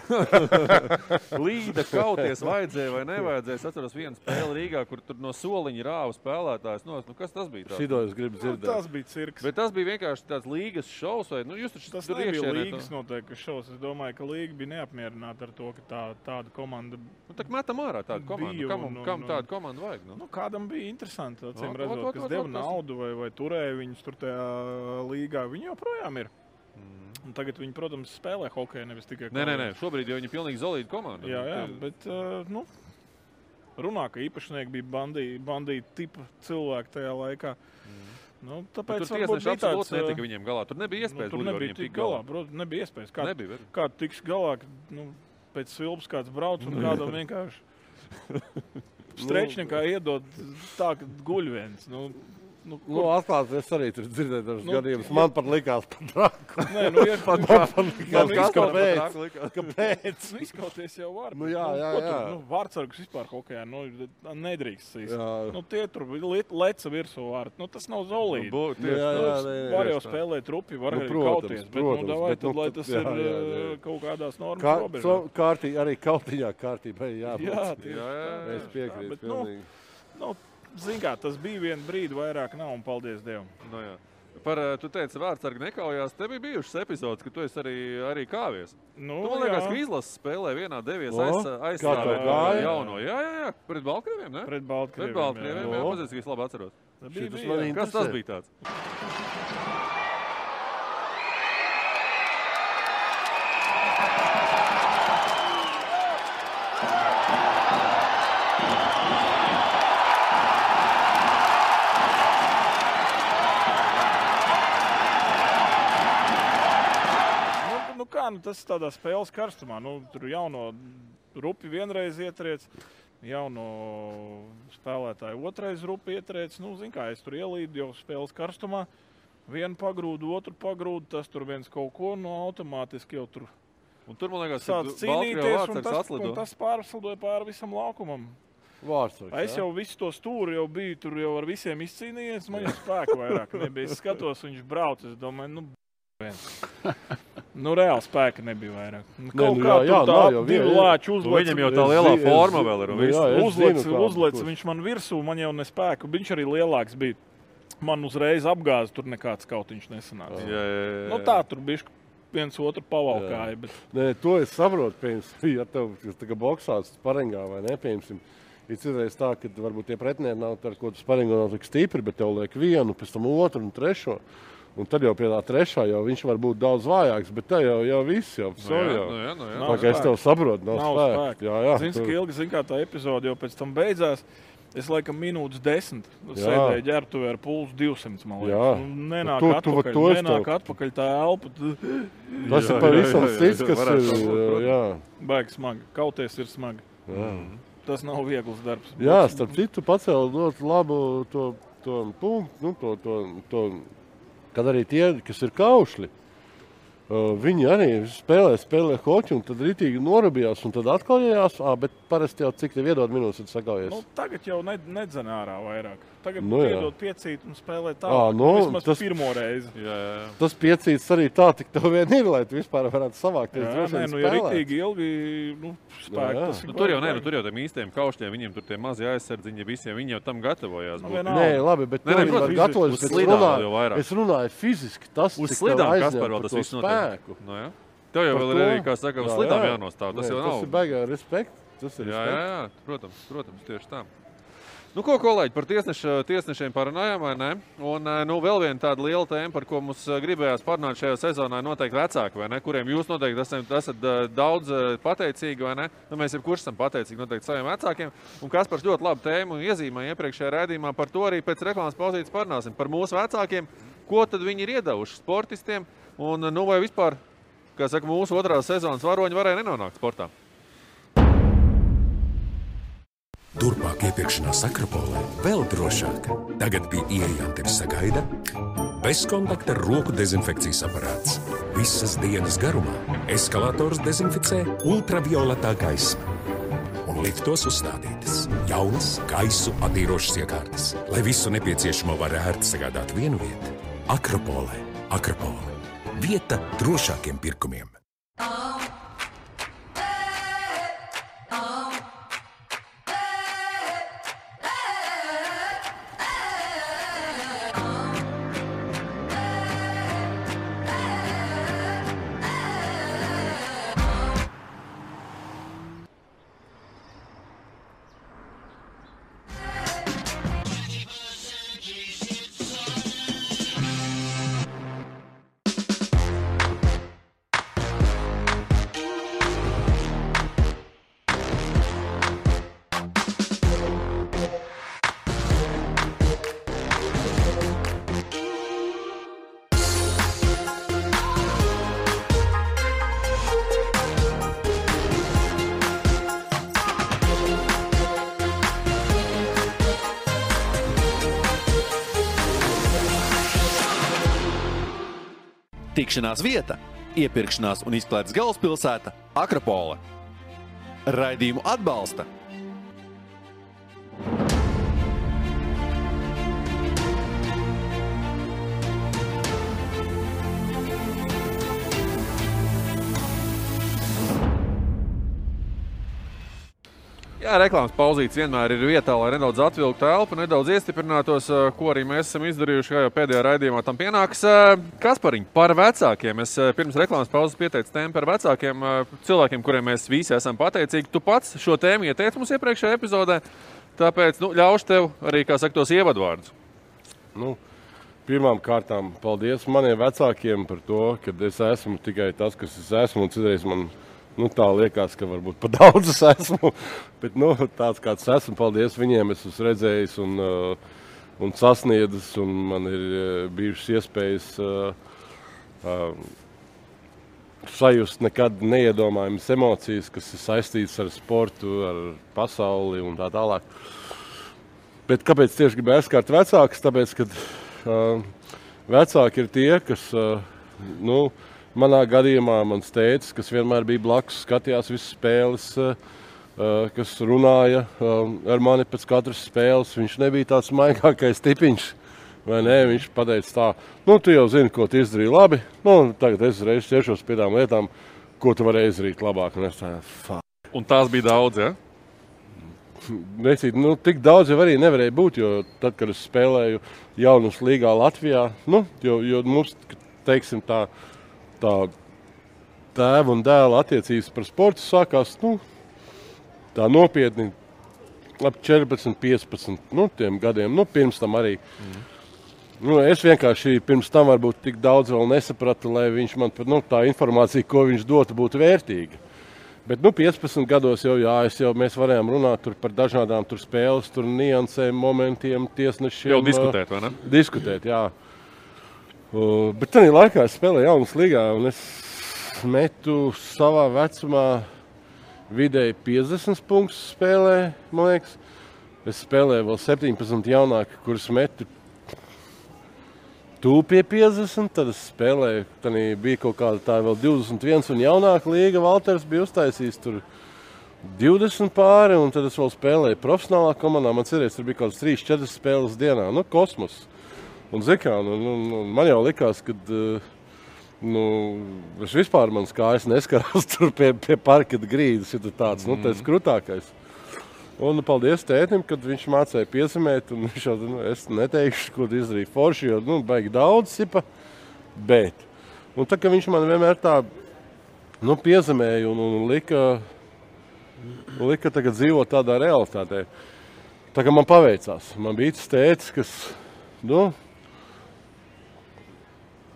kauties vajadzēja vai nevajadzēja. Es atceros vienu spēli Rīgā, kur tur no soliņa rāva spēlētājs. Kas tas bija? Šito es gribu dzirdēt. Tas bija cirks. Bet tas bija vienkārši tāds līgas šovs vai, jūs taču tas tur nebija iekšienē līgas noteikti šovs. Es domāju, ka līga bija neapmierināta ar to, ka tāda komanda tā metam ārā tādu komandu. Kam tādu komandu vajag? Kādam bija interesanti, acīm redzot, kas deva naudu vai turēja viņus tur tajā līgā. Viņi joprojām ir. Un tagad viņi, protams, spēlē hokeju, nevis tikai Nē, šobrīd jau viņi pilnīgi solīda komanda. Jā, bet, runā, ka īpašnieki bija bandīti tipa cilvēki tajā laikā. Tāpēc tur tiesneši absolūti netika viņiem galā. Tur nebija iespējas tur nebija tik galā. Nebija iespējas. Kā tiks galā, pēc svilpas kāds brauc un kādam vienkārši strečniekā iedod tā, ka guļ viens. Atklāt, es arī tur dzirdēju dažus gadījumus. Man pat likās par draku. Nē, Kāpēc? Izskauties jau var. Jā. Vārtsargus vispār hokejā nedrīkst sīst. Tie tur leca virsū vārti. Tas nav zolīdi. Var jau spēlēt rupi, var arī kauties. Bet lai tas ir kaut kādās normas robežās. Arī kautiņā kārtībai jābūt. Jā. Es piekrītu pilnīgi. Zin kā, tas bija vienu brīdi, vairāk nav, un paldies Dievam. Tu teici, vārtsargi nekaujās. Te bija bijušas epizodes, ka tu esi arī kāvies. Man liekas, ka izlases spēlē vienā devies aizstāvēt jauno. Jā, pret Baltkrieviem, ne? Pret Baltkrieviem, jā. Pazies, ka es labi atceros. Kas tas bija tāds? Tas ir tādā spēles karstumā. Tur jauno rupi vienreiz ietriec, jauno spēlētāju otrais rupi ietriec. Zin kā, es tur ielīdu jau spēles karstumā. Vienu pagrūdu, otru pagrūdu, tas tur viens kaut ko, automātiski jau tur. Un tur, man liekas, sāc cīnīties, un tas pārslidoja pāri visam laukumam. Es jau visu to stūri jau biju, tur jau ar visiem izcīnījies, man jau spēku vairāk nebija. Es skatos, viņš brauc, es domāju, reāli spēka nebija vairāk. Viņam jau tā lielā forma vēl ir. Uzlec, viņš man virsū, man jau nespēku. Viņš arī lielāks bija. Man uzreiz apgāza, tur nekāds kautiņš nesanāca. Tā tur bišķi viens otru pavalkāja. Bet... Nē, to es saprotu, ja tev tā boksāts sparingā vai nepiemsim. Ir citreiz tā, ka varbūt tie pretinieki nav ar ko tu sparingā nav tik stipri, bet tev liek vienu, pēc tam otru un trešo. Un tad jau pie tā trešā jau viņš var būt daudz vājāks, bet tā jau viss jau. Tā kā es tev saprotu, nav spēka. Zini, kā tā epizode jau pēc tam beidzās. Es laikam minūtes 10 sēdēju ģērbtuvē ar pulsu 200, man liekas. Nenāk atpakaļ tā elpa. Tas ir pavisam cits, kas ir. Baigi smagi. Kauties ir smagi. Tas nav viegls darbs. Jā, starp citu pacēla ļoti labu to punktu, kad arī tie, kas ir kaušļi, viņi arī spēlē hoķi un tad ritīgi norabījās un tad atkaujējās, bet parasti jau cik tev iedod minūtes, tad sakaujies. Tagad jau nedzen ārā vairāk. Tagad iedod piecīt un spēlē tālāk. Vismaz pirmo reizi. Tas piecīts arī tā, tik tev vien ir, lai tu vispār varētu savākties. Ja ritīgi ilgi spēku. Tur jau tiem īstiem kaušļiem, viņiem tur tie mazi aizsardziņi visiem, viņi jau tam gatavojās. Nē, labi, bet tev var gatavojas, bet es runāju fiziski, tas uz slidām Kasparvēl tas viss notiek. Tev jau vēl ir arī, kā saka, uz slidām jānostāv. Tas jau nav. Tas ir baigā respekts. Jā, protams, tieši tā. Ko, kolēģi, par tiesnešiem parunājām, vai ne? Un vēl viena tāda liela tēma, par ko mums gribējās parunāt šajā sezonā, noteikti vecāki, vai ne? Kuriem jūs noteikti esat daudz pateicīgi, vai ne? Mēs jebkurš esam pateicīgi noteikti saviem vecākiem. Un Kaspars ļoti labu tēmu iezīmēja iepriekšējā raidījumā, par to arī pēc reklāmas pauzītes parunāsim. Par mūsu vecākiem, ko tad viņi ir iedevuši sportistiem, un vai vispār, kā saka, mūsu otrās sezonas varoņi varēja nenonākt sportā. Turpmāk iepirkšanās Akropolē vēl drošāk. Tagad pie ieejām tevi sagaida bezkontakta roku dezinfekcijas aparāts. Visas dienas garumā eskalators dezinficē ultravioletā gaisma. Un liftos uzstādītas jaunas gaisu attīrošas iekārtas, lai visu nepieciešamo var ērti sagādāt vienu vietu. Akropolē. Vieta drošākiem pirkumiem. Tikšanās vieta, iepirkšanās un izklaides galvaspilsēta Akropole. Raidījumu atbalsta Jā, reklāmas pauzītes vienmēr ir vietā, lai nedaudz atvilktu telpu, nedaudz iestiprinātos, ko arī mēs esam izdarījuši, kā jau pēdējā raidījumā tam pienāks. Kaspariņ, par vecākiem. Es pirms reklāmas pauzes pieteicu tēmu par vecākiem cilvēkiem, kuriem mēs visi esam pateicīgi. Tu pats šo tēmu ieteici mums iepriekšējā epizodē, tāpēc ļaušu tev arī, kā saka, tos ievadvārdus. Pirmām kārtām paldies maniem vecākiem par to, ka es esmu tikai tas, kas es esmu, un citreiz man tā liekas, ka varbūt pa daudz es esmu, bet tāds kāds esmu, paldies viņiem, es esmu redzējis un sasniedzis, un man ir bijušas iespējas sajust nekad neiedomājamas emocijas, kas ir saistītas ar sportu, ar pasauli un tā tālāk. Bet kāpēc tieši gribēju aizskārt vecākus? Tāpēc, ka vecāki ir tie, kas, manā gadījumā mans tētis, kas vienmēr bija blakus, skatījās visas spēles, kas runāja ar mani pēc katras spēles. Viņš nebija tāds maigākais tipiņš, vai ne? Viņš pateica tā, tu jau zini, ko tu izdarīji labi, tagad es reiz ķeršos pie tām lietām, ko tu vari izdarīt labāk. Un es tā, Un tās bija daudz, ja? Necīt, tik daudz jau arī nevarēja būt, jo tad, kad es spēlēju jaunas līgā Latvijā, jo mums, teiksim tā tēva un dēla attiecības par sportu sākās, tā nopietni ap 14, 15, tiem gadiem, pirms tam arī. Es vienkārši pirms tam varbūt tik daudz vēl nesapratu, lai viņš man, tā informācija, ko viņš dotu, būtu vērtīga. Bet 15 gados mēs varējām runāt par dažādām spēles, niansēm, momentiem, tiesnešiem. Jau diskutēt, vai ne? Diskutēt, jā. Bet tajā laikā es spēlēju jaunas līgā, un es metu savā vecumā vidēji 50 punktus spēlē, man liekas. Es spēlēju vēl 17 jaunāki, kurus metu tuvu pie 50, tad es spēlēju, tad bija kaut kāda tā vēl 21 un jaunāka līga. Valters bija uztaisījis tur 20 pāri, un tad es vēl spēlēju profesionālā komandā. Man cerēs, tur bija kaut kāds 3-4 spēles dienā, kosmos. Un man jau likās, ka es vispār manas kājas neskarās tur pie parketa grīdas, ja tāds, tas krutākais. Un paldies tētim, kad viņš mācēja piezemēt, un viņš jau, es neteikšu, ko izdarīja forši, jo, baigi daudz sipa, bet. Un tā, ka viņš man vienmēr tā, piezemēja un lika tagad dzīvot tādā realitātē. Tā kā man paveicās. Man bija tas tētis, kas,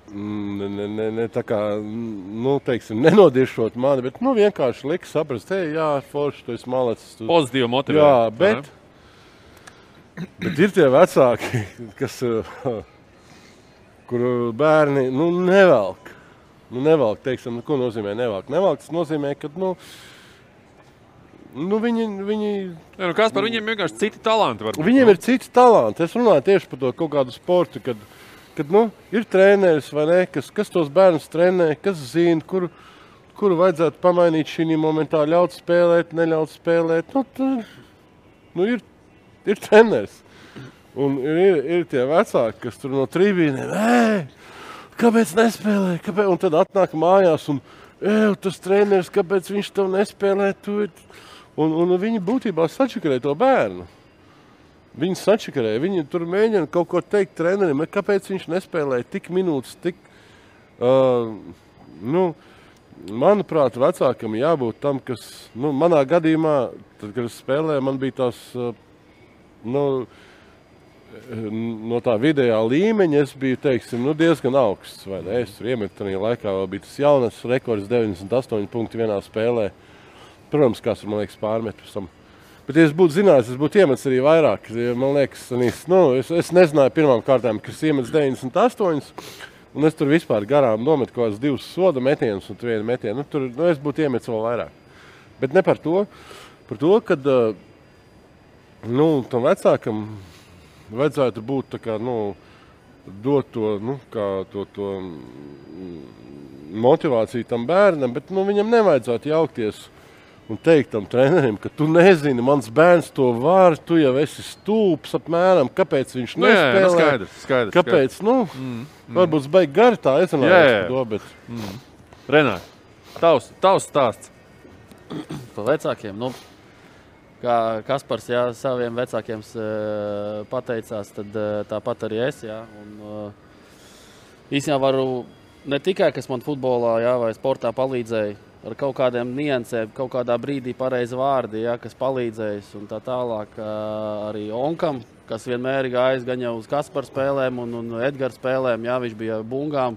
tā kā, teiksim, nenodiešot mani, bet, vienkārši lika saprast, forši, tu esi malacis. Pozitīvi motivē. Jā, bet ir tie vecāki, kas, kuru bērni, nevelk. Nevelk, teiksim, ko nozīmē nevelk? Nevelk, tas nozīmē, ka, viņi... Kaspar, viņiem vienkārši citi talanti var būt. Viņiem ir citi talanti. Es runāju tieši par to kaut kādu sportu, kad ir treneris, vai ne, kas tos bērnus trenē, kas zina, kuru vajadzētu pamainīt šī momentā, ļaut spēlēt, neļaut spēlēt. Ir treneris. Un ir tie vecāki, kas tur no tribīnēm, kāpēc nespēlē? Un tad atnāk mājās un, tas treneris, kāpēc viņš tev nespēlē? Un viņi būtībā sačakarē to bērnu. Viņi sačakarē, viņi tur mēģina kaut ko teikt trenerim, kāpēc viņš nespēlēja tik minūtes, manuprāt, vecākam jābūt tam, kas, manā gadījumā, tad, kad es spēlēju, man bija tās, no tā vidējā līmeņa, es biju, teiksim, diezgan augsts, vai ne? Es tur iemetu tajā laikā, vēl bija tas jaunas rekords 98 punkti vienā spēlē. Protams, kāds man liekas pārmet pēc tam. Bet, ja es būtu zinājis, es būtu iemetis arī vairāk. Man liekas, es nezināju pirmām kārtām, ka es iemetis 98, un es tur vispār garām nometu kaut kādas 2 soda metienus un 1 metienu. Tur es būtu iemetis vēl vairāk. Bet ne par to. Par to, kad tam vecākam vajadzētu būt tā kā, dot to, to motivāciju tam bērnam, bet viņam nevajadzētu jaukties un teikt tam trenerim, ka tu nezini, mans bērns to var, tu jau esi stulbs apmēram, kāpēc viņš nespēlē. Skaidrs. Kāpēc, varbūt baigi gari tā, es runāju to, bet... Renār, tavs stāsts. Par vecākiem, kā Kaspars, saviem vecākiem pateicās, tad tāpat arī es, un īstenībā varu ne tikai, kas man futbolā, vai sportā palīdzēja, ar kaut kādiem niansēm, kaut kādā brīdī pareizi vārdi, kas palīdzējis un tā tālāk arī Onkam, kas vienmēr gājis gan jau uz Kaspara spēlēm un Edgara spēlēm, viņš bija bungām,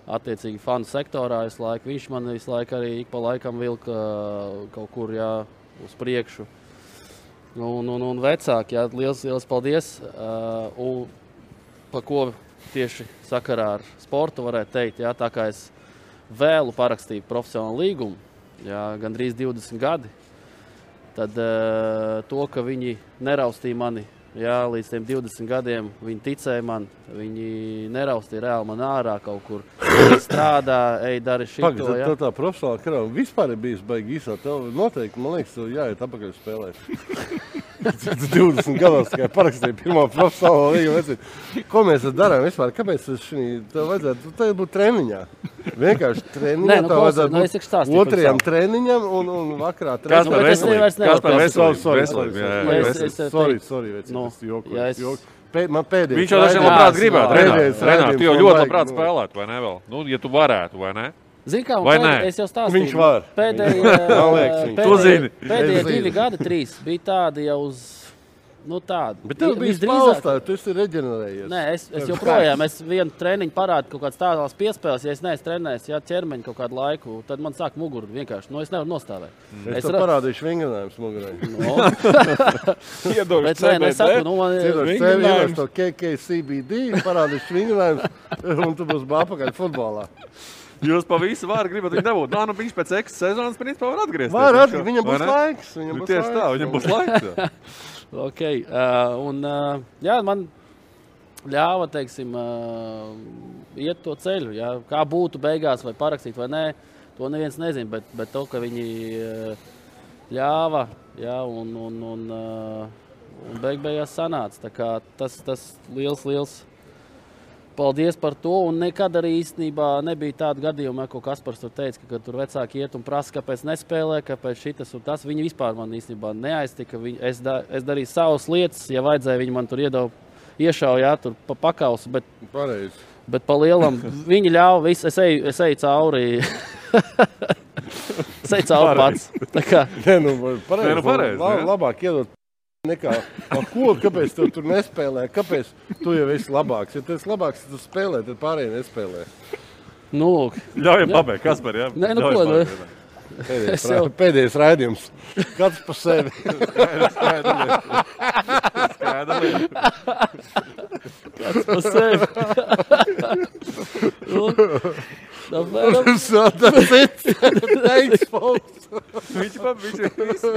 attiecīgi fanu sektorā visu laiku. Viņš man visu laiku arī ik pa laikam vilka kaut kur, uz priekšu. Un vecāki, liels paldies. Un pa ko tieši sakarā ar sportu varētu teikt, tā kā es vēlu parakstīju profesionālu līgumu, gandrīz 20 gadi, tad to, ka viņi neraustīja mani, līdz tiem 20 gadiem, viņi ticēja man, viņi neraustīja reāli man ārā kaut kur, strādā, dari šito. Pagad, tā profesionāla karāva vispār ir bijis baigi īsā, tev noteikti, man liekas, tev jāiet apakaļ spēlēt. 20 gados tikai parakstīja pirmo profesionālo līgumu. Ko mēs darām vispār? Kāpēc tev vajadzētu? Tev būtu treniņā. Vienkārši treniņā. Tev vajadzētu otrajam treniņam un vakarā treniņam. Kaspar veselību. Man pēdējais. Viņš jau dažiem labprāt gribētu. Renār, tu jau ļoti labprāt spēlētu, vai ne vēl? Ja tu varētu, vai ne? Zini kā, es jau stāstīju. Viņš var. Pēdējie 2 gadi, 3 bija tādi jau uz, tādi. Bet tev bija spēlstāji, tu esi reģenerējies. Nē, es joprojām, es vienu treniņu parādu kaut kāds tādās piespēles, ja es neesmu trenējis, ķermeņu kaut kādu laiku, tad man sāk muguru vienkārši, es nevaru nostāvēt. Es tev parādīšu vingrinājums mugurai. Iedošu CBD, to KKCBD, parādīšu vingrinājums, un tu būs apakaļ futbolā. Jūs pa visu vāru gribat viņu dabūt. Viņš pēc X sezonas principā var atgriezties. Viņam būs laiks. Tieši tā, viņam būs laiks. Ok, man ļāva, teiksim, iet to ceļu. Kā būtu beigās vai parakstīt vai nē, to neviens nezina, bet to, ka viņi ļāva, un beigās sanāca. Tā kā tas liels paldies par to, un nekad arī īstenībā nebija tāda gadījuma, ko Kaspars tur teica, ka tur vecāki iet un prasa, kāpēc nespēlē, kāpēc šitas un tas. Viņi vispār man īstenībā neaiztika. Es darīju savas lietas, ja vajadzēja, viņi man tur iešauja, tur pa pakausu, bet pa lielam viņi ļāva visu, es eju cauri. Es eju cauri pats. Tā kā. Pareizi. Labāk iedot. Nekā, kāpēc tu tur nespēlē? Kāpēc tu jau esi labāks? Ja tu esi labāks, tad tu spēlē, tad pārējie nespēlē. Ļaujam pabeigt, Kaspar, jā? Nē, Pēdējais raidījums. Kāds pa sevi. Kāds pa sevi.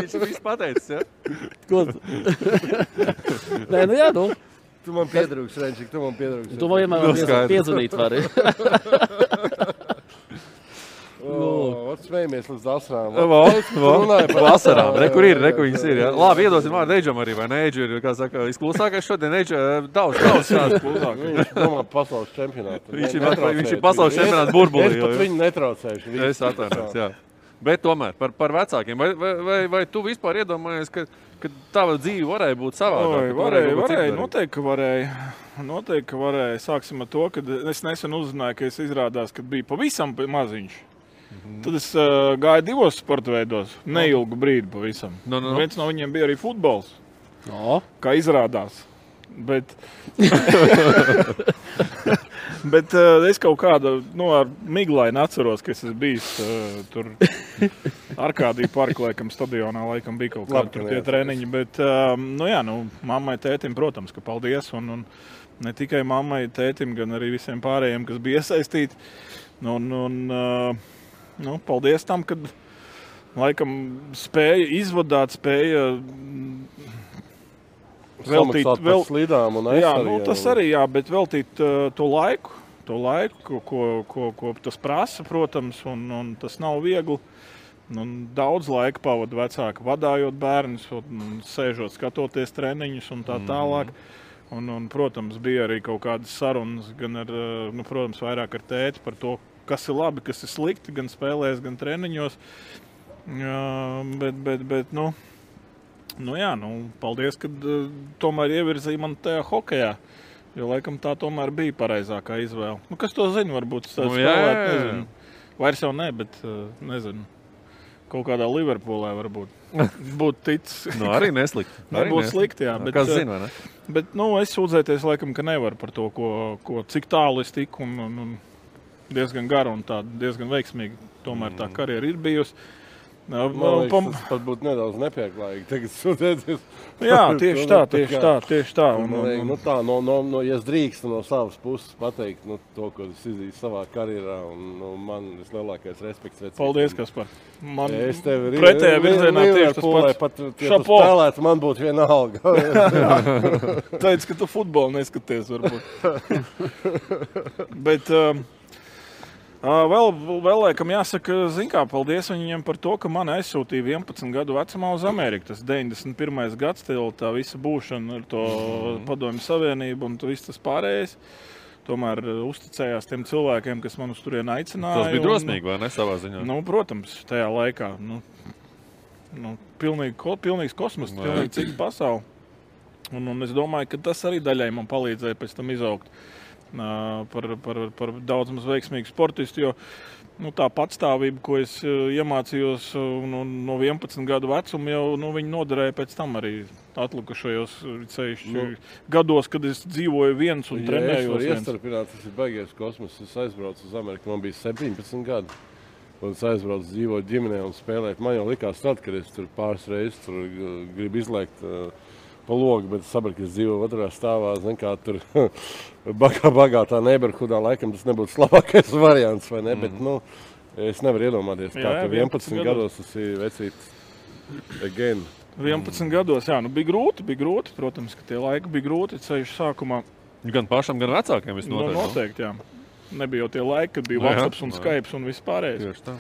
Viņš viss pateicis, ja? Ko? Nē, Tu man piedrūks, Renčik, tu man piedrūks. Tu man vienmēr piedzvanīt vari. Smējamies līdz asarām. Vasarām, kur viņas ir, ja? Labi, iedosim vārdu Eidžam arī, vai ne? Eidžu ir, kā saka, izklusākais šodien. Eidžu daudz šāds klusākais. Viņš domā pasaules čempionātu. Viņš ir pasaules čempionāts burbulī. Es pat viņu netraucēšu. Es atvainojos, jā. Bet tomēr par vecākiem. Vai tu vispār iedomājies, ka tava dzīve varēja būt savādāk? Varēja, noteikti, ka varēja. Sāksim ar to, ka es nesen uzzināju, ka es izrādās, ka biju pavisam maziņš. Tad es gāju 2 sporta veidos, neilgu brīdi pavisam. Viens no viņiem bija arī futbols, kā izrādās. Bet es kaut kāda, ar miglaini atceros, ka es esmu bijis tur Arkādija parka, laikam, stadionā, laikam bija kaut kādi tur tie treniņi. Bet, mammai, tētim, protams, ka paldies. Un ne tikai mammai, tētim, gan arī visiem pārējiem, kas bija iesaistīti. Paldies tam, kad, laikam, spēja izvadāt, spēja Samaksāt par slidām un jā, nu, tas arī, jā, bet veltīt to laiku, ko tas prasa, protams, un tas nav viegli. Un daudz laika pavada vecāki vadājot bērnus, sēžot, skatoties treniņus un tā tālāk. Un, protams, bija arī kaut kādas sarunas, gan ar, protams, vairāk ar tēti par to, kas ir labi, kas ir slikti, gan spēlēs, gan treniņos. Bet paldies, ka tomēr ievirzīja man tajā hokejā. Jo, laikam, tā tomēr bija pareizākā izvēle. Kas to zina, varbūt spēlēt, nezinu. Vairs jau ne, bet nezinu. Kaut kādā Liverpoolē varbūt būtu ticis. Arī neslikti. Nebūtu slikti, jā. Bet, kas zina, vai ne? Bet, es sūdzēties, laikam, ka nevar par to, cik tālu es tiku un diezgan garu un tā diezgan veiksmīgi. Tomēr tā karjera ir bijusi. Tas pat būtu nedaudz nepieklājīgi tagad sūdzēties. Jā, tieši tā. Ja es drīkstu no savas puses pateikt to, ko es izdarīju savā karjerā, un man vislielākais respekts. Paldies, Kaspar. Man tevi pretējā virzienā tieši tas pats. Pat, ja tu spēlētu, man būtu vienalga. Teic, ka tu futbolu neskaties, varbūt. Bet... Vēl laikam jāsaka, paldies viņiem par to, ka mani aizsūtīja 11 gadu vecumā uz Ameriku. Tas 91. gads, tā visa būšana ar to Padomju Savienību un viss tas pārējais. Tomēr uzticējās tiem cilvēkiem, kas man uz turieni aicināja. Tas bija drosmīgi, vai ne, savā ziņā? Protams, tajā laikā. Pilnīgs kosmos, pilnīgi cita pasaule. Un es domāju, ka tas arī daļai man palīdzēja pēc tam izaugt. Par daudz maz veiksmīgu sportistu, jo tā patstāvība, ko es iemācījos no 11 gadu vecuma, jau viņi noderēja pēc tam arī atlikušajos gados, kad es dzīvoju viens un trenējos viens. Ja es varu iestarpināt, tas ir baigies kosmos. Es aizbraucu uz Ameriku, man bija 17 gadi. Un es aizbraucu dzīvot ģimenē un spēlēt. Man jau likās tad, kad es tur pāris reizes gribu izlēkt pa logu, bet es sapratu, ka es dzīvoju otrā stāvā, kā tur bagātā neighborhoodā, laikam tas nebūtu labākais variants, vai ne? Bet, es nevaru iedomāties, kā tur 11 gados tas ir vecīts again. 11 gados, jā, bija grūti, protams, ka tie laiki bija grūti, ceļš sākumā. Gan pašam, gan vecākiem viss noteikti. Noteikti, jā. Nebija jau tie laiki, kad bija WhatsApp un Skype un viss pārējais. Tieši tā.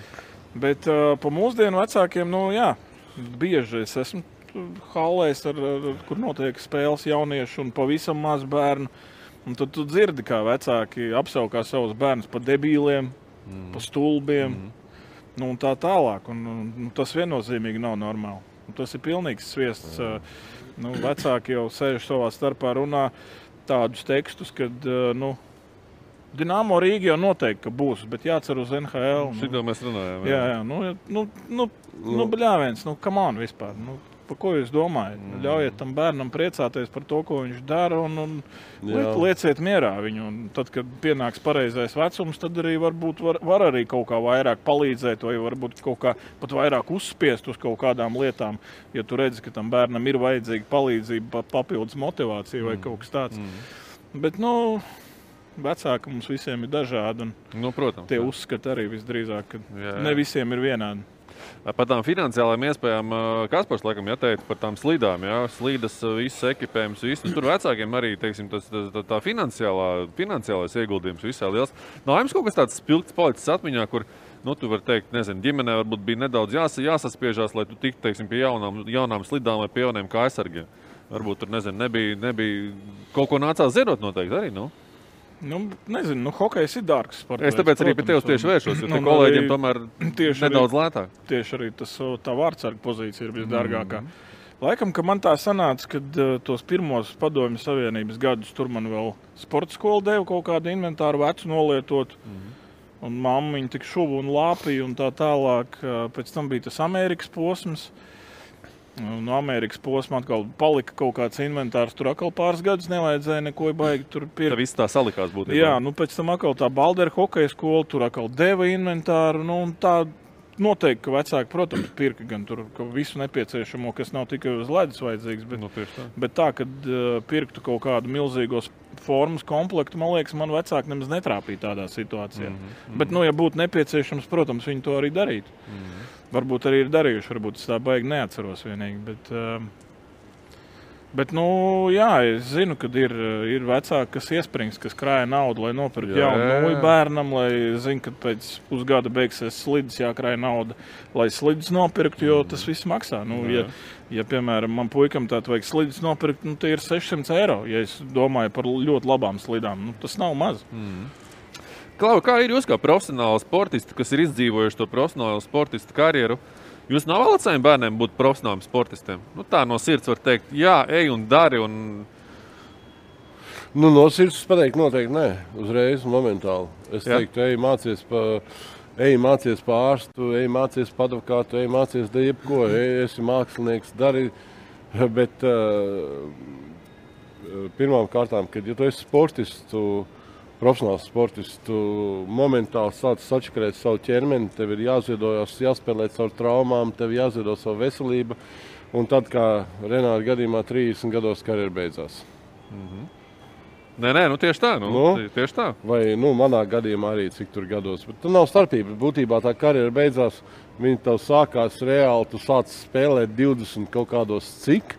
Bet pa mūsdienu vecākiem, bieži es esmu hallēs, kur notiek spēles jauniešu un pavisam maz bērnu. Un tad tu dzirdi, kā vecāki apsaukā savus bērnus pa debīliem, pa stulbiem, un tā tālāk. Un tas viennozīmīgi nav normāli. Un tas ir pilnīgs sviests. Vecāki jau sēž savā starpā runā tādus tekstus, kad, Dinamo Rīga jau noteikti, ka būs, bet jācer uz NHL. Šito mēs runājam. Jā. Bļāviens, come on vispār. Par ko jūs domājat? Ļaujiet tam bērnam priecāties par to, ko viņš dara, un lieciet mierā viņu. Un tad, kad pienāks pareizais vecums, tad arī varbūt var arī kaut kā vairāk palīdzēt, vai varbūt kaut kā pat vairāk uzspiest uz kaut kādām lietām, ja tu redzi, ka tam bērnam ir vajadzīga palīdzība, papildus motivācija vai kaut kas tāds. Bet, vecāki mums visiem ir dažādi, un protams, tie uzskati arī visdrīzāk, ka ne visiem ir vienādi. Par tām finansiālajām iespējām Kaspars laikam jāteica par tām slīdām, slīdas, viss ekipējums, viss. Tur vecākiem arī, teiksim, tā finansiālais ieguldījums visā liels. Nav jums kaut kas tāds spilgts palicis atmiņā, kur, tu vari teikt, nezinu, ģimenē varbūt bija nedaudz jāsaspiežās, lai tu tiktu, teiksim, pie jaunām slidām vai pie jauniem kājsargiem. Varbūt tur, nezinu, nebija kaut ko nācās ziedot noteikti arī, Nezinu, hokejs ir dārgs sports. Es tāpēc arī pie tevis tieši vēršos, jo te kolēģiem tomēr nedaudz lētāk. Tieši arī tā vārdsarga pozīcija ir visdārgākā. Laikam, ka man tā sanāca, kad tos pirmos Padomju Savienības gadus tur man vēl sporta skola deva kaut kādu inventāru vecu nolietot. Un mammiņa tik šuvu un lāpīja un tā tālāk. Pēc tam bija tas Amerikas posms. No Amerikas posma atkal palika kaut kāds inventārs. Tur atkal pāris gadus nevajadzēja neko baigi tur pirkt. Tā viss tā salikās būtībā. Jā, pēc tam atkal tā Baldera hokeja skola, tur atkal deva inventāru. Un tā noteikti, ka vecāki, protams, pirka gan tur visu nepieciešamo, kas nav tikai uz ledus vajadzīgs. Bet tā, kad pirktu kaut kādu milzīgos formas komplektu, man liekas, man vecāki nemaz netrāpīja tādā situācijā. Bet, ja būtu nepieciešams, protams, viņi to arī darītu. Varbūt arī ir darījuši, varbūt es tā baigi neatceros vienīgi, bet Bet, jā, es zinu, ka ir vecāki, kas iesprings, kas krāja naudu, lai nopirktu jaunu nūju bērnam, lai zina, ka pēc pusgada beigsies slidus, jākrāja nauda, lai slidus nopirktu, jo tas viss maksā. Ja piemēram, man puikam tātad vajag slidus nopirkt, tie ir 600 eiro, ja es domāju par ļoti labām slidām. Tas nav maz. Klau, kā ir jūs kā profesionāli sportisti, kas ir izdzīvojuši to profesionālo sportistu karjeru? Jūs novēlat saviem bērniem būt profesionāliem sportistiem? Tā no sirds var teikt, jā, ej un dari. No sirds pateikt noteikti nē, uzreiz, momentāli. Es teiktu, ej mācies pa ārstu, ej mācies pa advokātu, ej mācies jebko, esi mākslinieks, dari. Bet pirmām kārtām, kad ja tu esi sportists, profesionāls sportists, tu momentāli sāc sačakarēt savu ķermeni, tev ir jāziedojas, jāspēlēt savu traumām, tev jāziedo savu veselību, un tad, kā Renāta gadījumā, 30 gados karjera beidzās. Nē, tieši tā. Tieši tā. Vai, manā gadījumā arī cik tur gados, bet tur nav starpība. Būtībā tā karjera beidzās, viņa tev sākās reāli, tu sāc spēlēt 20 kaut kādos cik,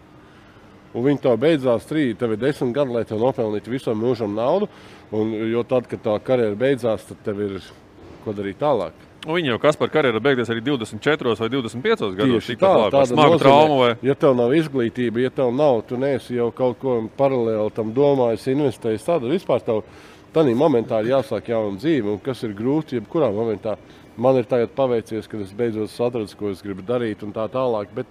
un viņa tev beidzās 3, tev ir 10 gadi, lai tev nopelnītu visam mūžam naudu. Jo tad, kad tā karjera beidzās, tad tev ir ko darīt tālāk. Viņa jau Kaspar karjera beigties arī 24 vai 25 gados. Tieši tāda smaga trauma vai? Ja tev nav izglītība, ja tev nav, tu neesi jau kaut ko paralēli tam domājis, investējis, tad vispār tev tādā momentā ir jāsāk jauna dzīve, un kas ir grūti, jebkurā momentā. Man ir tagad paveicies, kad es beidzot atradu, ko es gribu darīt un tā tālāk, bet,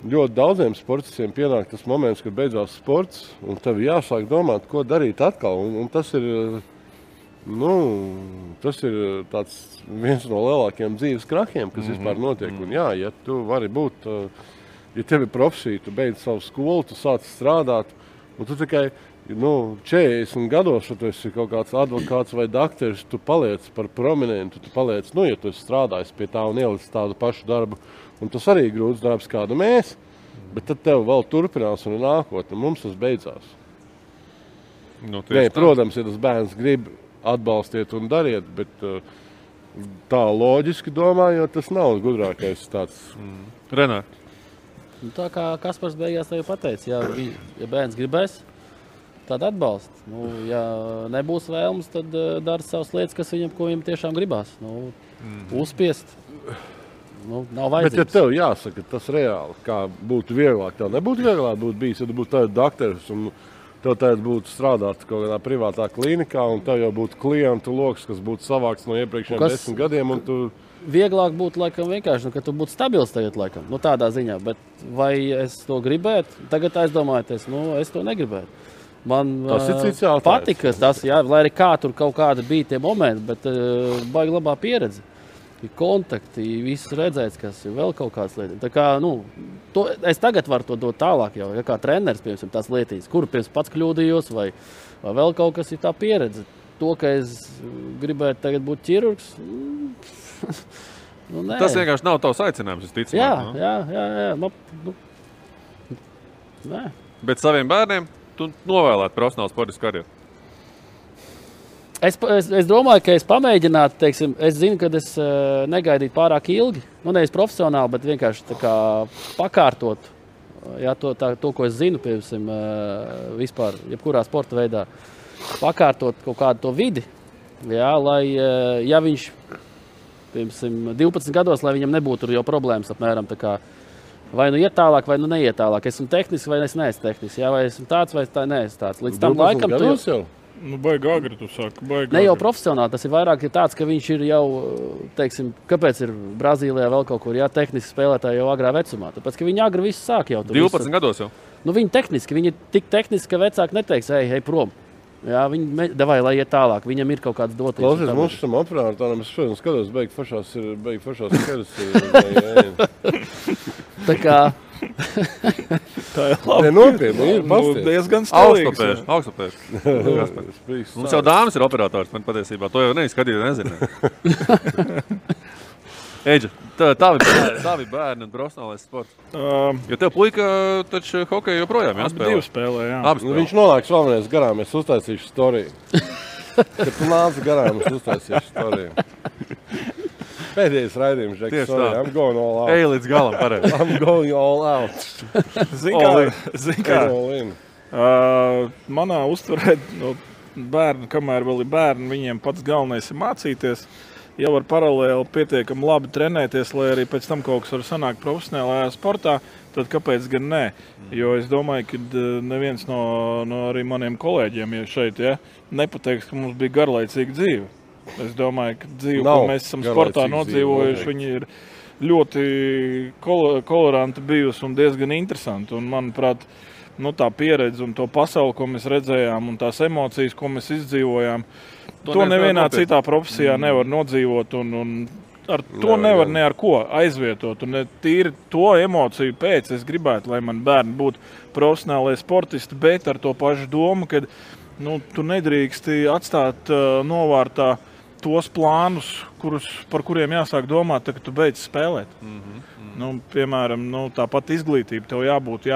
ļoti daudziem sportistiem pienāk tas moments, kad beidzās sports, un tev jāsāk domāt, ko darīt atkal. Un tas ir, tas ir tāds viens no lielākiem dzīves krahiem, kas vispār notiek. Un jā, ja tu vari būt, ja tev ir profesija, tu beidz savu skolu, tu sāc strādāt, un tu tikai 40 gados, ja tu esi kaut kāds advokāts vai dakteris, tu paliec par prominentu, tu paliec, ja tu esi strādājis pie tā un ielicis tādu pašu darbu. Un tas arī ir grūts darbs, kādu mēs, bet tad tev vēl turpinās un ir nākotne. Mums tas beidzās. Protams, ja tas bērns grib, atbalstiet un dariet, bet tā loģiski domājot, tas nav gudrākais tāds. Renār. Tā kā Kaspars beigās tev pateica, ja bērns gribēs, tad atbalst. Ja nebūs vēlmes, tad dara savas lietas, ko viņam tiešām gribās. Uzspiest. Nav vajadzības. Bet, ja tev jāsaka, tas reāli, kā būtu vieglāk, tev nebūtu vieglāk būt bijis, ja tu būtu tāds dakteris un tev tagad būtu strādāt kaut kādā privātā klīnikā un tev jau būtu klientu loks, kas būtu savāks no iepriekšējiem 10 gadiem. Un tu... Vieglāk būtu laikam vienkārši, ka tu būtu stabils tagad laikam, tādā ziņā, bet vai es to gribētu? Tagad aizdomājoties, es to negribētu. Man patika tas, lai arī kā tur kaut kāda bija tie momenti, bet baigi labā pieredze. Kontakti, viss redzēts, kas ir vēl kaut kādas lietas. Tā kā, es tagad varu to dot tālāk jau, kā treneris, piemēram, tās lietas, kuru pats kļūdījos, vai vēl kaut kas ir tā pieredze. To, ka es gribētu tagad būt ķirurgs, nē. Tas vienkārši nav tavs aicinājums, es ticu. Jā. Nē. Bet saviem bērniem tu novēlētu profesionālu sportisku karjeru? Es domāju, ka es pamēģinātu, es zinu, ka es negaidītu pārāk ilgi, nevis profesionāli, bet vienkārši tā kā pakārtot, to, ko es zinu, piemēram, vispār, jebkurā sporta veidā, pakārtot kaut kādu to vidi, lai, ja viņš, piemēram, 12 gados, lai viņam nebūtu jau problēmas apmēram, tā kā, vai iet tālāk, vai neiet tālāk, esmu tehnisks, vai es neesmu tehnisks, vai esmu tāds, vai tā neesmu tāds. Līdz tam laikam tu jau... Baigi agri, tu saki, ne jau profesionāli, tas ir vairāk tāds, ka viņš ir jau, kāpēc ir Brazīlijā vēl kaut kur, tehniski spēlētāji jau agrā vecumā, tāpēc, ka viņi agri visu sāk jau. 12 gados jau? Viņi tehniski, viņi ir tik tehniski, ka vecāki neteiks, ej prom. Viņi davai, lai iet tālāk, viņam ir kaut kāds dotības. Klausies, mums šam operātājam, es šodien skatos, beig fašās keras. Tā kā... Tā ir labi. Nopietni, ir pasties. Diezgan stilīgs. Augstupēši. Mums jau dāmas ir operators, man patiesībā. To jau neizskatīt, nezinu. Eģa, tavi bērni un profesionālais sports. Jo tev puika taču hokeju joprojām jāspēlē. Divi spēlē, jā. Viņš nolēks vēlreiz garām, es uztaisīšu storiju. Kad tu nāc garām, es uztaisīšu storiju. Pēdējais raidījums, Žeks. Tieši Sorry, tā. I'm going all out. Ej līdz galam, pareizi. I'm going all out. Zini kā, All in. manā uztverē bērni, kamēr vēl ir bērni, viņiem pats galvenais ir mācīties. Ja var paralēli pietiekami labi trenēties, lai arī pēc tam kaut kas var sanākt profesionālajā sportā, tad kāpēc gan nē? Jo es domāju, ka neviens no arī maniem kolēģiem šeit nepateiks, ka mums bija garlaicīga dzīve. Es domāju, ka dzīve, ko mēs esam sportā nodzīvojuši, viņi ir ļoti koloranti bijusi un diezgan interesanti. Un, manuprāt, tā pieredze un to pasauli, ko mēs redzējām, un tās emocijas, ko mēs izdzīvojām, to nevienā citā profesijā nevar nodzīvot, un ar to nevar ne ar ko aizvietot. Un tīri to emociju pēc es gribētu, lai man bērni būtu profesionālai sportisti, bet ar to pašu domu, ka tu nedrīksti atstāt novārtā tos plānus, par kuriem jāsāk domāt, kad tu beidz spēlēt. Piemēram, tāpat izglītība tev jābūt,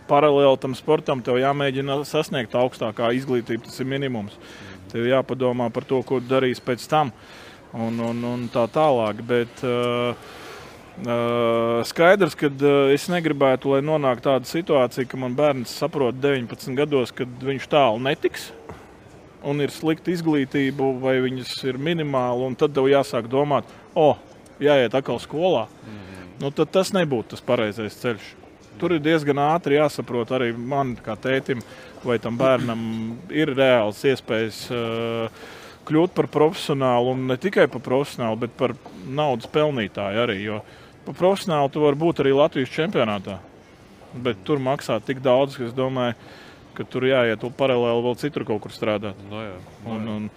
paralēli tam sportam, tev jāmēģina sasniegt augstākā izglītība, tas ir minimums. Tev jāpadomā par to, ko darīs pēc tam un tā tālāk. Bet skaidrs, ka es negribētu, lai nonāk tāda situācija, ka man bērns saprot 19 gados, kad viņš tālu netiks un ir slikta izglītība vai viņas ir minimāli, un tad tev jāsāk domāt, jāiet atkal skolā. Tad tas nebūtu tas pareizais ceļš. Tur ir diezgan ātri jāsaprot arī man kā tētim, vai tam bērnam ir reāls iespējas kļūt par profesionālu, un ne tikai par profesionālu, bet par naudas pelnītāju arī. Jo par profesionālu tu vari būt arī Latvijas čempionātā, bet tur maksā tik daudz, ka es domāju, ka tur jāiet paralēli vēl citur kaut kur strādāt. Un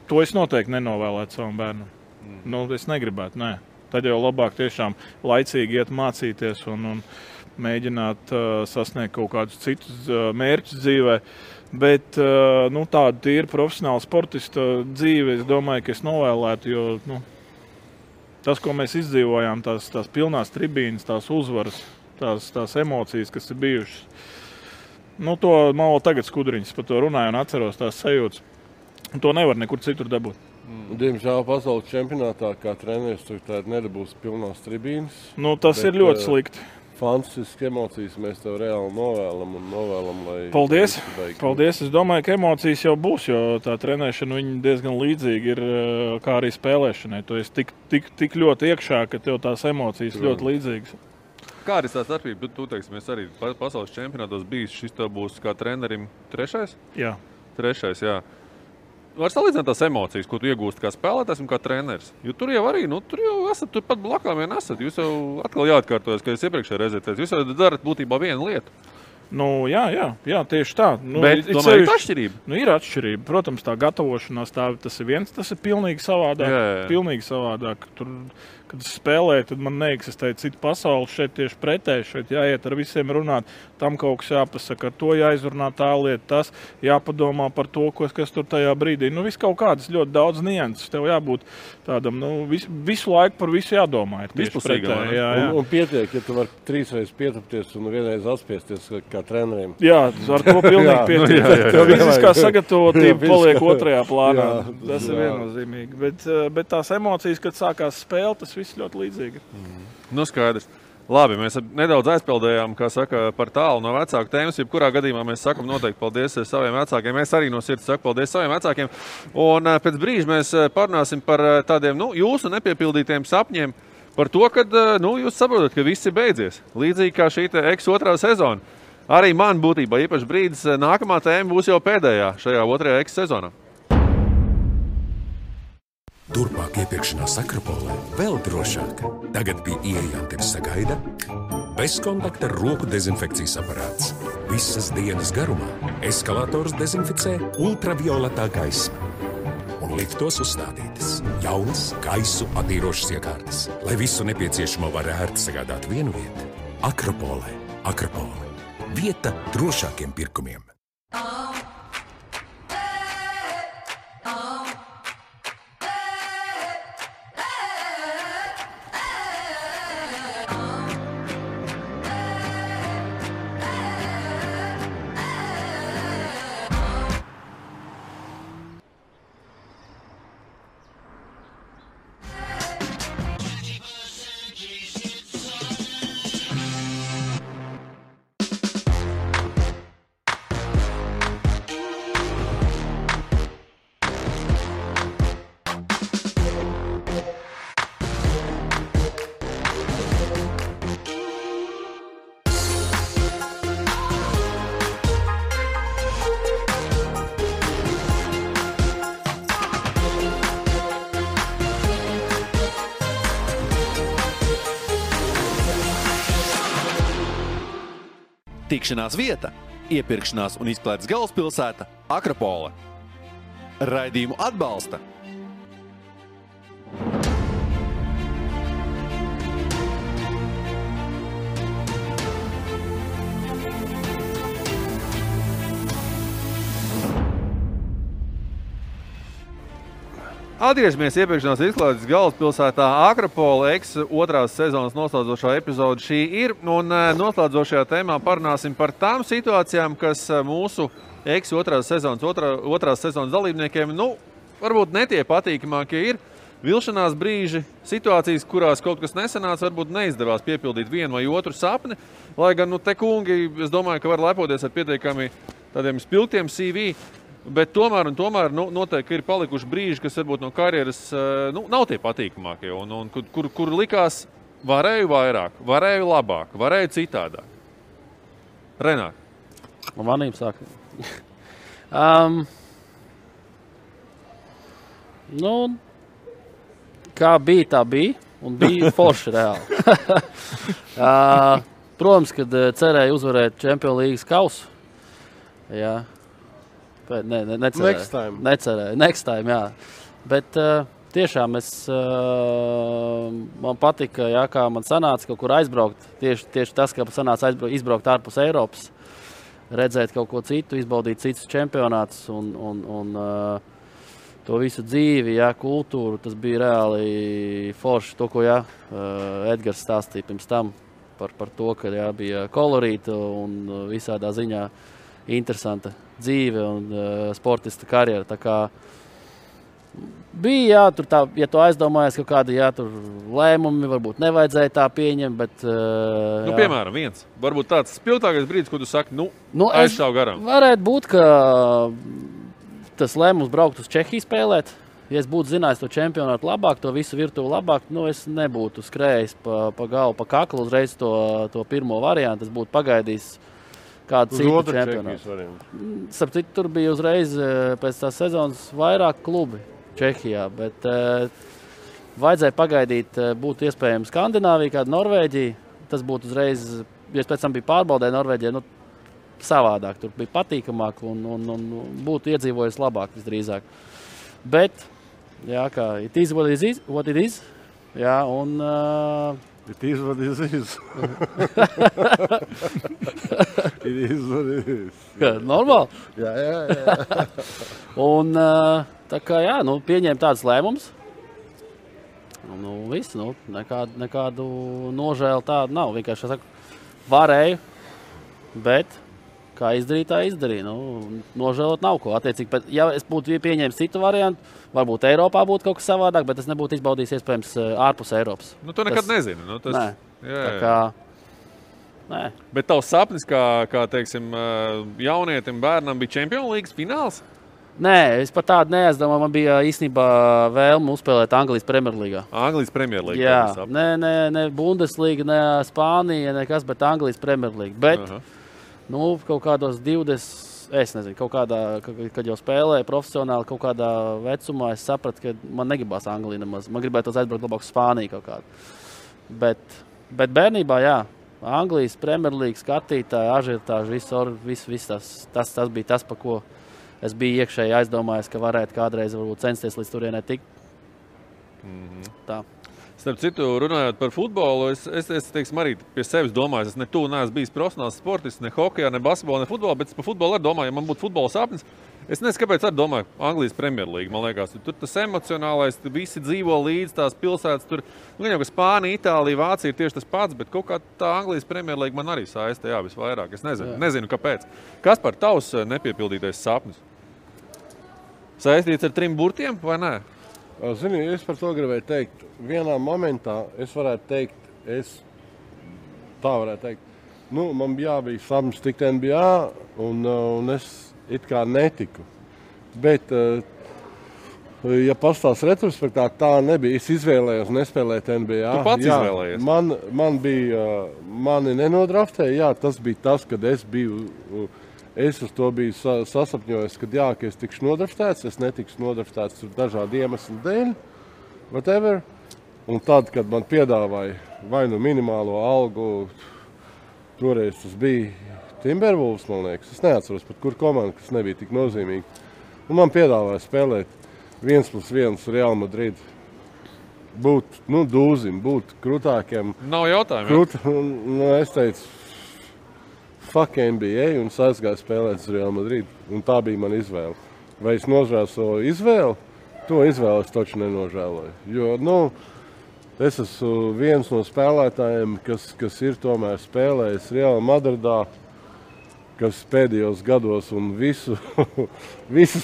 to es noteikti nenovēlētu savam bērnam. Es negribētu, nē. Tad jau labāk tiešām laicīgi iet mācīties un mēģināt sasniegt kaut kādus citus mērķus dzīvē. Bet tāda tīra profesionāla sportista dzīve, es domāju, ka es novēlētu, jo tas, ko mēs izdzīvojām, tās pilnās tribīnas, tās uzvaras, tās emocijas, kas ir bijušas, to man vēl tagad skudriņas par to runāju un atceros tās sajūtas. To nevar nekur citur dabūt. Diemžēl pasaules čempionātā kā treneris tur nedabūs pilnās tribīnas. Tas ir ļoti slikti. Fantastiski emocijas mēs tev reāli novēlam, lai... Paldies! Paldies! Es domāju, ka emocijas jau būs, jo tā trenēšana viņa diezgan līdzīga ir kā arī spēlēšanai. Tu esi tik ļoti iekšā, ka tev tās emocijas ļoti līdzīgas. Kā arī tā starpība? Tu teiksi, mēs arī pasaules čempionātos bijis, šis tev būs kā trenerim trešais? Jā. Trešais, jā. Var salīdzināt tās emocijas, ko tu iegūsti kā spēlētājs un kā treneris. Jo tur jau arī, tur jau esat, tur pat blakām vien esat. Jūs jau atkal jāatkārtojas, ka jūs iepriekšējā reizē teicat. Jūs jau darat būtībā vienu lietu. Jā, tieši tā. Bet tomēr ir atšķirība. Ir atšķirība. Protams, tā gatavošanās, tas ir viens, tas ir pilnīgi savādāk. Jā. Pilnīgi savādāk. Tur, kad es spēlēju, tad man neeksistēja cita pasaule. Šeit tieši pretēji, šeit jāiet ar visiem runāt. Tam kaut kas jāpasaka, ar to jāizrunā tā lieta, tas jāpadomā par to, kas tur tajā brīdī. Viss kaut kādas ļoti daudz nianses. Tev jābūt tādam, visu laiku par visu jādomā. Vispusīgam. Un pietiek, ja tu vari 3 reizes pietupties un 1 reizi atspiesties kā treneriem. Jā, ar to pilnīgi pietiek. Tev fiziskā sagatavotība paliek otrajā plānā. Tas ir viennozīmīgi. Bet tās emocijas, kad sākās spēle, tas viss ļoti līdzīgi. Skaidrs. Labi, mēs nedaudz aizpildējām, kā saka, par tālu no vecāku tēmas. Jebkurā gadījumā mēs sakam noteikti paldies saviem vecākiem. Es arī no sirds saku paldies saviem vecākiem. Un pēc brīža mēs parunāsim par tādiem, jūsu nepiepildītiem sapņiem. Par to, ka jūs saprotat, ka viss ir beidzies. Līdzīgi kā šī X2 sezona. Arī man būtībā īpaši brīdis nākamā tēma būs jau pēdējā šajā 2. X sezonā. Turpmāk iepirkšanās Akropolē vēl drošāk. Tagad pie ieejām tevi sagaida bezkontakta roku dezinfekcijas aparāts. Visas dienas garumā eskalators dezinficē ultravioletā gaisma. Un liftos uzstādītas jaunas gaisu attīrošas iekārtas, lai visu nepieciešamo var ērti sagādāt vienu vietu. Akropolē. Akropole. Vieta drošākiem pirkumiem. Tikšanās vieta, iepirkšanās un izklaides galvaspilsēta Akropole. Raidījumu atbalsta Atgriežamies iepirkšanās izklaides galvaspilsētā Akropole otrās sezonas noslēdzošā epizode šī ir. Un noslēdzošajā tēmā parunāsim par tām situācijām, kas mūsu otrās sezonas dalībniekiem, varbūt ne tie patīkamākie ir. Vilšanās brīži, situācijas, kurās kaut kas nesanāca, varbūt neizdevās piepildīt vienu vai otru sapni. Lai gan, te kungi, es domāju, ka var lepoties ar pietiekami tādiem spilgtiem CV. Bet tomēr noteikti ir palikuši brīži, kas varbūt no karjeras nav tie patīkamākie. Un kur likās, varēju vairāk, varēju labāk, varēju citādāk. Renāt. Manīm sāk. Kā bija, tā bija. Un bija forši reāli. Protams, kad cerēju uzvarēt Champions League kausu. Jā. Necerēju. Next time, jā. Bet tiešām man patika, jā, kā man sanāca kaut kur aizbraukt. Tieši tas, ka sanāca izbraukt ārpus Eiropas, redzēt kaut ko citu, izbaudīt citus čempionātus un to visu dzīvi, jā, kultūru. Tas bija reāli forši. To, ko Edgars stāstīja pirms tam par to, ka jā, bija kolorīta un visādā ziņā interesanta dzīve un sportista karjera. Tā kā bija, jā, tur tā, ja tu aizdomājies kaut kādi, jā, tur lēmumi, varbūt nevajadzēja tā pieņemt, bet... Piemēram, viens. Varbūt tāds spilgtākais brīdis, ko tu saki, aizšāv garām. Varētu būt, ka tas lēmums braukt uz Čehiju spēlēt. Ja es būtu zinājis to čempionātu labāk, to visu virtuvi labāk, es nebūtu skrējis pa galvu, pa kaklu uzreiz to pirmo variantu. Es būtu pagaidījis kādu citu čempionātu. Starp citu, tur bija uzreiz pēc tās sezonas vairāk klubi Čehijā, bet vajadzēja pagaidīt, būtu iespējams Skandināvija, kāda Norvēģija. Tas būtu uzreiz, ja es pēc tam biju pārbaudē Norvēģijā, savādāk. Tur bija patīkamāk un būtu iedzīvojis labāk visdrīzāk. Bet, jā, kā it is what it is, jā, un... It is what it is. It is what it is. Normāli? Jā. Un tā kā, jā, pieņēma tāds lēmums. Viss, nekādu nožēlu tādu nav. Vienkārši, saku, varēju, bet kā izdarīt, tā izdarīja. Nožēlot nav ko. Attiecīgi, ja es būtu pieņēmis citu variantu, varbūt Eiropā būtu kaut kas savādāk, bet es nebūtu izbaudījis iespējams ārpus Eiropas. To nekad nezinu. Nē. Tā kā, nē. Bet tavs sapnis, kā teiksim, jaunietim bērnam bija Champions League fināls? Nē, es pat tādu neaizdomāju. Man bija īstenībā vēlme uzspēlēt Anglijas Premjerlīgā. Anglijas Premjerlīga? Jā, ne Bundesliga, ne Spānija, nekas, bet Anglijas Premjerlīga. Bet, kaut kādos 20... Es nezinu, kaut kādā, kad jau spēlēju profesionāli, kaut kādā vecumā, es sapratu, ka man negribās Angliju nemaz. Man gribētos aizbraukt labāk uz Spāniju kaut kādu. Bet bērnībā, jā, Anglijas Premjerlīga skatītāji, ažiotāži, viss tas bija tas, pa ko es biju iekšēji aizdomājies, ka varētu kādreiz varbūt censties līdz turienē tikt. Tā. Starp citu, runājot par futbolu, es teiksim, arī pie sevis domāju, es neesmu bijis profesionāls sportists, ne hokejā, ne basketbolā, ne futbolā, bet par futbolu arī domāju, ja man būtu futbola sapnis, es nezinu, kāpēc arī domāju Anglijas Premjerlīga, man liekas, tur tas emocionālais, visi dzīvo līdz tās pilsētas, tur, jau, ka Spānija, Itālija, Vācija ir tieši tas pats, bet kaut kā tā Anglijas Premjerlīga man arī saista, jā, visvairāk, es nezinu kāpēc. Kas par tavs nepiepildītais sapnis? Saistīts ar 3 burtiem vai nē? Zini, es par to gribēju teikt. Vienā momentā es varētu teikt, man bija sapnis tikt NBA, un es it kā netiku. Bet, ja pastāst retrospektā, tā nebija. Es izvēlējos nespēlēt NBA. Tu pats izvēlējies? Mani nenodraftēja, jā, tas bija tas, kad es biju... Es uz to biju sasapņojis, ka es tikšu nodraftēts, es netikšu nodraftēts dažādu iemeslu dēļ, whatever. Un tad, kad man piedāvāja vai minimālo algu, toreiz tas bija Timberwolves, man liekas. Es neatceros, pat kur komanda, kas nebija tik nozīmīga. Un man piedāvāja spēlēt 1+1 Real Madrid. Būt, dūzim, būt krutākiem. Nav jautājumu. Es teicu, fuck NBA un aizgāju spēlēt uz Real Madrid. Un tā bija mana izvēle. Vai es nožēloju savu izvēli? To izvēli es taču nenožēloju. Jo, es esmu viens no spēlētājiem, kas ir tomēr spēlējis Real Madridā, kas pēdējos gados un visus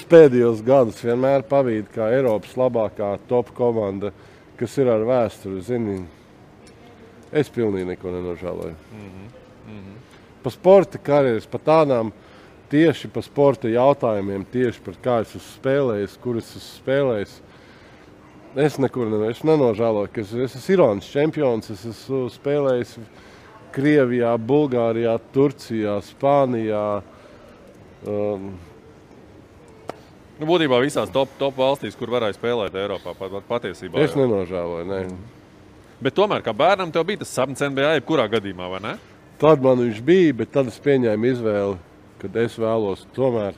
pēdējos gadus vienmēr pavīd kā Eiropas labākā top komanda, kas ir ar vēsturi. Zini, es pilnīgi neko nenožēloju. Pa sporta karjeras, pa tādām tieši pa sporta jautājumiem, tieši par kā es esmu spēlējis, kur es esmu spēlējis. Es nenožēloju, ka es esmu Irānas čempions, es esmu spēlējis Krievijā, Bulgārijā, Turcijā, Spānijā. Būtībā visās top valstīs, kur varēja spēlēt Eiropā, patiesībā. Es nenožēloju, ne. Bet tomēr, kā bērnam, tev bija tas sapnis NBA, jebkurā gadījumā, vai ne? Tad man viņš bija, bet tad es pieņēmu izvēli, kad es vēlos tomēr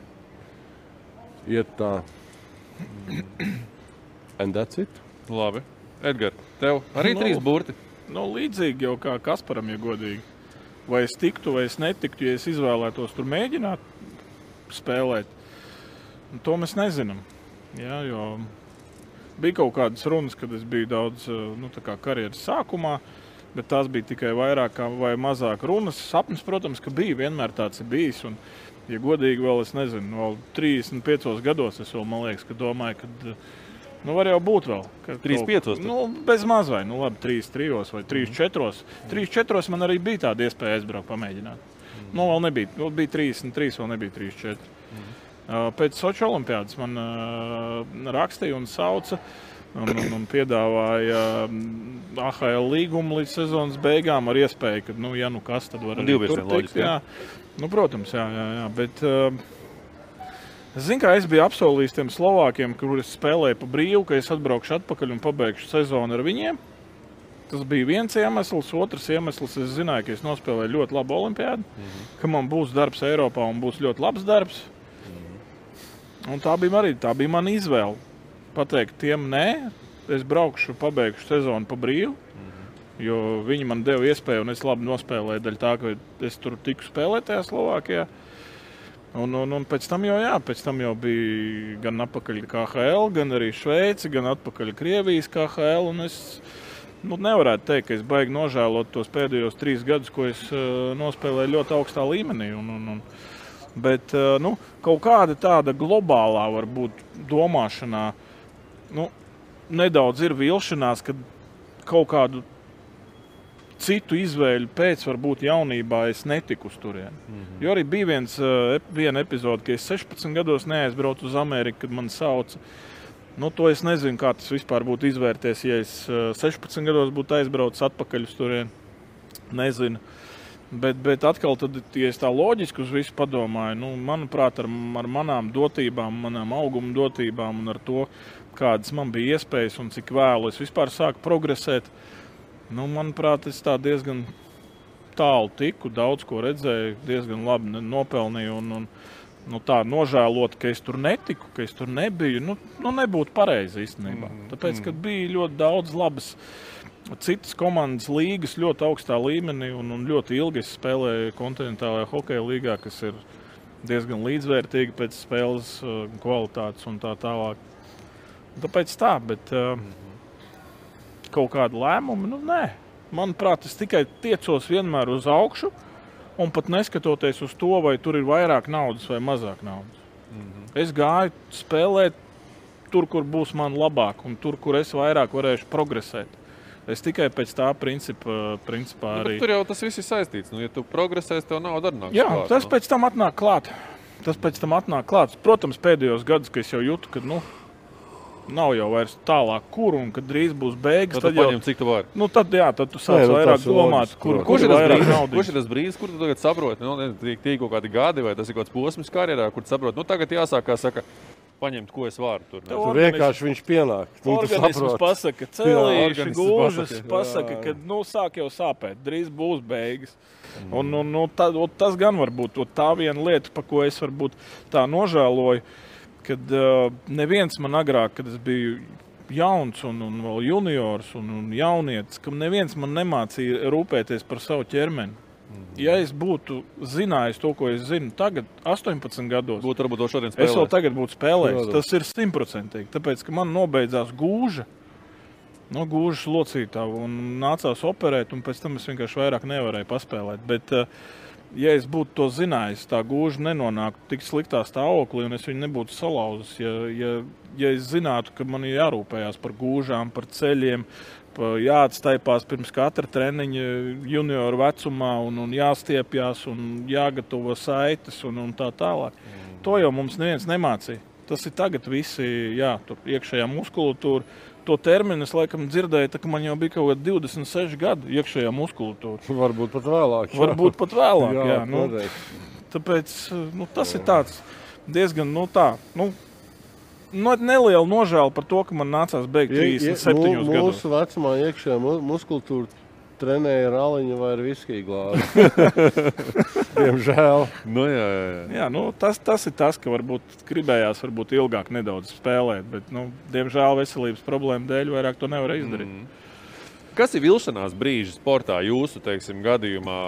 iet tā. And that's it. Labi. Edgar, tev arī 3 burti? Līdzīgi jau kā Kasparam, ja godīgi. Vai es tiktu, vai es netiktu, ja es izvēlētos tur mēģināt spēlēt. To mēs nezinām. Jā, jo bija kaut kādas runas, kad es biju daudz tā kā karjeras sākumā, bet tās bija tikai vairāk vai mazāk runas. Sapnis, protams, ka bija, vienmēr tāds ir bijis. Un, ja godīgi vēl, es nezinu, vēl 35 gados es vēl, man liekas, ka domāju, ka var jau būt vēl. 35? Bez maz vai, labi, 3 vai 3-4. 3-4 man arī bija tāda iespēja aizbraukt, pamēģināt. Vēl nebija, bija 33, vēl nebija 3-4. Pēc Soči olimpiādas man rakstīja un sauca un piedāvāja AHL līgumu līdz sezonas beigām ar iespēju, ka, ja kas, tad var arī tur tikt. Jā. Protams, jā. Bet es zinu, kā es biju apsolījis tiem Slovākiem, kur es spēlēju pa brīvu, ka es atbraukšu atpakaļ un pabeigšu sezonu ar viņiem. Tas bija viens iemesls. Otrs iemesls, es zināju, ka es nospēlēju ļoti labu olimpiādu, ka man būs darbs Eiropā un būs ļoti labs darbs. Un tā bija mana izvēle. Pateikt tiem nē, es braukšu, pabeigšu sezonu pa brīvu, jo viņi man deva iespēju un es labi nospēlēju daļa tā, ka es tur tiku spēlēt tajā Slovākijā. Un pēc tam jau bija gan atpakaļ KHL, gan arī Šveici, gan atpakaļ Krievijas KHL, un es nevarētu teikt, ka es baigi nožēlot tos pēdējos 3 gadus, ko es nospēlēju ļoti augstā līmenī. Bet kaut kāda tāda globālā varbūt domāšanā, nedaudz ir vilšanās, kad kaut kādu citu izvēļu pēc varbūt jaunībā es netiku uz turieni. Jo arī bija viena epizode, ka es 16 gados neaizbraucu uz Ameriku, kad man sauca. To es nezinu, kā tas vispār būtu izvērties, ja es 16 gados būtu aizbraucis atpakaļ uz turieni. Nezinu. Bet atkal, tad, ja es tā loģiski uz visu padomāju, manuprāt, ar manām dotībām, manām auguma dotībām un ar to, kādas man bija iespējas un cik vēlu es vispār sāku progresēt, manuprāt, es tā diezgan tālu tiku, daudz ko redzēju, diezgan labi nopelnīju un tā nožēlot, ka es tur netiku, ka es tur nebiju, nebūtu pareizi īstenībā. Tāpēc, kad bija ļoti daudz labas citas komandas līgas ļoti augstā līmenī un ļoti ilgi es spēlēju kontinentālajā hokeja līgā, kas ir diezgan līdzvērtīga pēc spēles kvalitātes un tā tālāk. Tāpēc tā, bet kaut kādu lēmumu, nē. Manuprāt, es tikai tiecos vienmēr uz augšu un pat neskatoties uz to, vai tur ir vairāk naudas vai mazāk naudas. Es gāju spēlēt tur, kur būs man labāk un tur, kur es vairāk varēšu progresēt. Es tikai pēc tā principā arī... Tur jau tas viss ir saistīts. Ja tu progresēsi, tev nauda arī nāks klāt. Jā, tas pēc tam atnāk klāt. Protams, pēdējos gadus, ka es jau jūtu, ka nav jau vairs tālāk kur un kad drīz būs beigas. Tad paņem, cik tu vari. Tad tu sāc vairāk domāt, kur ir vairāk naudas. Kurš ir tas brīdis, kur tu tagad saproti? Tī kaut kādi gadi vai tas ir kaut kāds posms karjerā, kur tu saproti, tagad jāsāk, kā saka, paņemt, ko es varu tur. Tur vienkārši viņš pienāk. Organisms pasaka, celīši, gūžas, pasaka, ka sāk jau sāpēt, drīz būs beigas. Un tas gan var būt tā viena lieta, pa ko es varbūt tā nožēloju, kad neviens man agrāk, kad es biju jauns un vēl juniors un jaunietis, kam neviens man nemācīja rūpēties par savu ķermeni. Ja es būtu zinājis to, ko es zinu tagad, 18 gados, varbūt to šodien spēlēt. Es vēl tagad būtu spēlējis. Tas ir 100%. Tāpēc, ka man nobeidzās gūža, gūžas locītavu un nācās operēt, un pēc tam es vienkārši vairāk nevarēju paspēlēt. Bet, ja es būtu to zinājis, tā gūža nenonāktu tik sliktā stāvoklī, un es viņu nebūtu salauzis, ja es zinātu, ka man ir jārūpējās par gūžām, par ceļiem, jāatstaipās pirms katra treniņa junioru vecumā un jāstiepjās un jāgatavo saites un tā tālāk. To jau mums neviens nemācīja. Tas ir tagad visi, tur iekšējā muskulatūra. To terminu es laikam dzirdēju, ka man jau bija kaut kādi 26 gadi iekšējā muskulatūra. Varbūt pat vēlāk. Varbūt pat vēlāk, tāpēc tas ir tāds diezgan, neliela nožēla par to, ka man nācās beigt 37 gados. Mūsu vecumā iekšējā muskultūra trenēja ar aliņu vai ar viskiju glāzi. Diemžēl. Tas ir tas, ka varbūt gribējās ilgāk nedaudz spēlēt, bet, diemžēl veselības problēmu dēļ vairāk to nevar izdarīt. Kas ir vilšanās brīži sportā jūsu, gadījumā?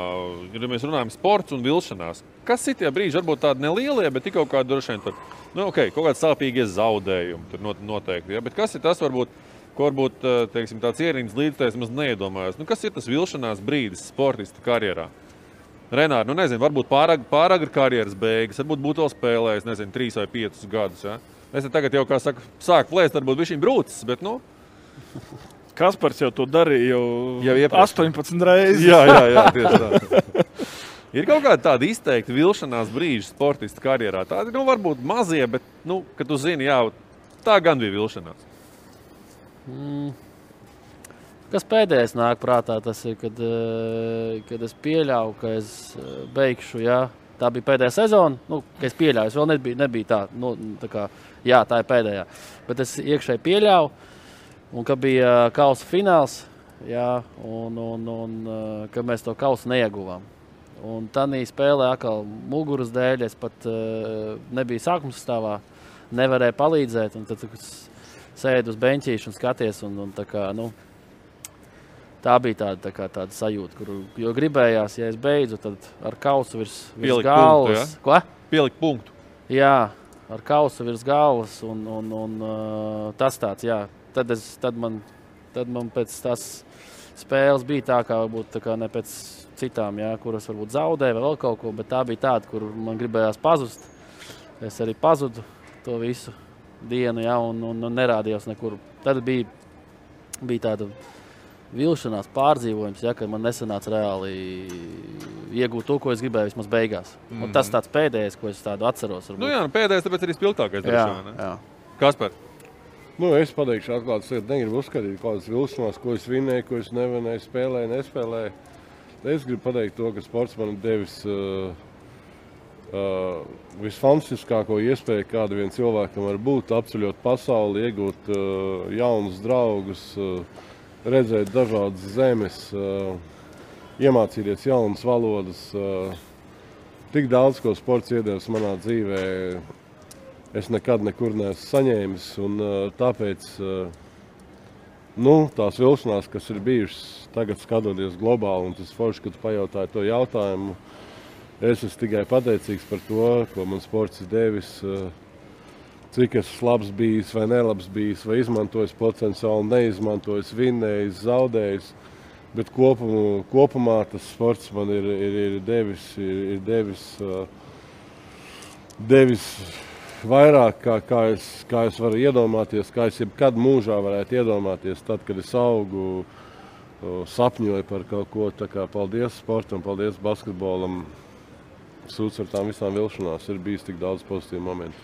Ja mēs runājam sports un vilšanās, kas ir tie brīži? Varbūt tādi nelielie, bet tik kaut kādi droši vien tur, kaut kādi sāpīgie zaudējumi tur noteikti. Ja? Bet kas ir tas, ko varbūt tāds ierīnas līdzstājs maz neiedomājas? Kas ir tas vilšanās brīdis sportista karjerā? Renāri, nezinu, varbūt pāragri karjeras beigas, varbūt būtu vēl spēlējis, 3 vai 5 gadus. Ja? Es tagad jau, kā saka, sāku plēst, varbūt bišķiņ brūcis, bet, Kaspars jau to darīja jau 18 reizes. Jā, tieši tā. Ir kaut kāda tāda izteikta vilšanās brīža sportista karjerā. Tādi, varbūt mazie, bet, kad tu zini, tā gan bija vilšanās. Kas pēdējais nāk prātā, tas ir, kad es pieļauju, ka es beigšu, tā bija pēdējā sezona, ka es pieļauju, es vēl nebija tā, tā kā, tā ir pēdējā. Bet es iekšēji pieļauju. Un ka bija kausa fināls, ka mēs to kausu neieguvām. Un tādā spēlē atkal muguras dēļ es pat nebiju sākuma sastāvā, nevarēju palīdzēt. Un tad sēdu uz beņķīšu un skaties. Tā bija tāda sajūta, jo gribējās, ja es beidzu, tad ar kausu virs galvas. Punktu, Ko? Pielikt punktu. Jā, ar kausu virs galvas un tas tāds, Tad man pēc tās spēles bija tā, kā varbūt ne pēc citām, kuras varbūt zaudēja vai vēl kaut ko, bet tā bija tāda, kur man gribējās pazust. Es arī pazudu to visu dienu, un nerādījos nekur. Tad bija tāda vilšanās pārdzīvojums, ka man nesanāca reāli iegūt to, ko es gribēju vismaz beigās. Un tas tāds pēdējais, ko es tādu atceros. Pēdējais, tāpēc arī spilgtākais. Jā. Kaspar? Es pateikšu atklāti, es negribu uzskatīt kādas vilšanās, ko es vinēju, ko es nevinēju, spēlēju, nespēlēju. Es gribu pateikt to, ka sports man ir devis visfantastiskāko iespēju, kāda vien cilvēkam var būt, apceļot pasauli, iegūt jaunus draugus, redzēt dažādas zemes, iemācīties jaunas valodas. Tik daudz, ko sports iedevis manā dzīvē, es nekad nekur neesmu saņēmis, un tāpēc tās vilšanās, kas ir bijušas tagad skatoties globāli, un tas forši, kad pajautāju to jautājumu, es esmu tikai pateicīgs par to, ko man sports ir devis, cik esmu labs bijis vai nelabs bijis, vai izmantojis potenciāli, neizmantojis, vinnējis, zaudējis, bet kopumā tas sports man ir devis vairāk, kā es varu iedomāties, kā es jebkad mūžā varētu iedomāties, tad, kad es augu, sapņoju par kaut ko. Tā kā paldies sportam, paldies basketbolam. Sūds ar tām visām vilšanās ir bijis tik daudz pozitīvu momentu.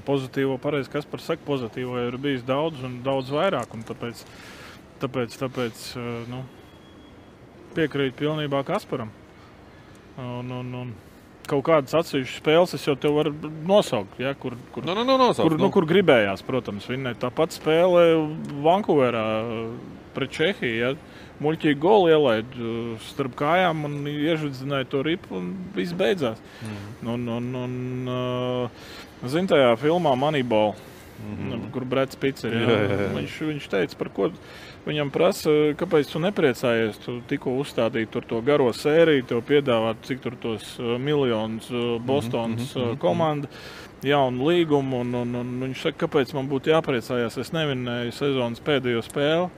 Pozitīvo, pareizi, Kaspars saka, pozitīvo ir bijis daudz un daudz vairāk. Un tāpēc piekrīt pilnībā Kasparam. kaut kādas atsevišķas spēles es jau tev varu nosaukt, ja, kur gribējās, protams, vinnēt. Tāpat spēle Vankūverā pret Čehiju, ja, muļķīgi goli ielaid starp kājām un iežvidzināja to ripu un viss beidzās. Zin tajā filmā Moneyball, kur Breds Pitts ir, viņš teica, par ko viņam prasa, kāpēc tu nepriecājies, tu tikko uzstādīji tur to garo sēriju, tev piedāvāt, cik tur tos miljonus Bostonas komanda, jaunu līgumu, un viņš saka, kāpēc man būtu jāpriecājās, es nevinēju sezonas pēdējo spēli.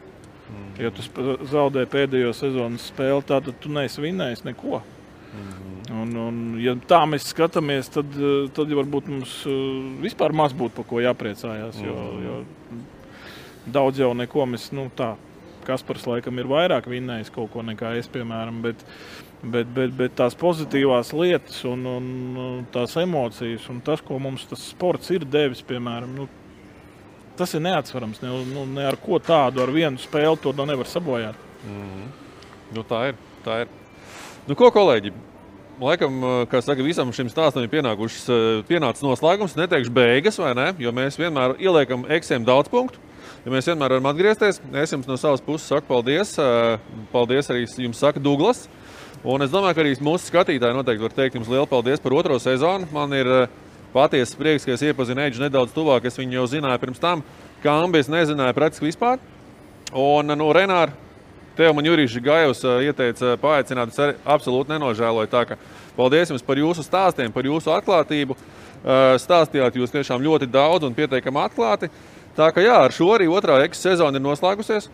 Ja tu zaudēji pēdējo sezonas spēli, tad tu neesi vinnējis neko. Un, ja tā mēs skatāmies, tad varbūt mums vispār maz būtu par ko jāpriecājās, jo daudz jau neko mēs, Kaspars laikam ir vairāk vinnējis kaut ko nekā es, piemēram, bet tās pozitīvās lietas un tās emocijas un tas, ko mums tas sports ir devis, piemēram, tas ir neatsvarams. Ne ar ko tādu, ar vienu spēli to nevar sabojāt. Tā ir. Ko, kolēģi? Laikam, kā saka, visam šim stāstam ir pienācis noslēgums. Neteikšu beigas, vai ne? Jo mēs vienmēr ieliekam eksiem daudz punktu. Ja mēs vienmēr varam atgriezties. Es jums no savas puses saku paldies. Paldies arī jums saka Douglas. Un es domāju, ka arī mūsu skatītāji noteikti var teikt jums lielu paldies par 2. sezonu. Man ir patiesas prieks, ka es iepazinu Eidžu nedaudz tuvāk. Es viņu jau zināju pirms tam. Kambi es nezināju praktiski vispār. Un Renār, tev man Jurīši Gajevs ieteica paaicināt, es absolūti nenožēloju. Tā ka paldies jums par jūsu stāstiem, par jūsu atklātību. Stāstījāt jūs tiešām ļoti daudz un pieteikami atklāti. Tā ka jā, ar šo arī 2. sezona ir noslēgusies.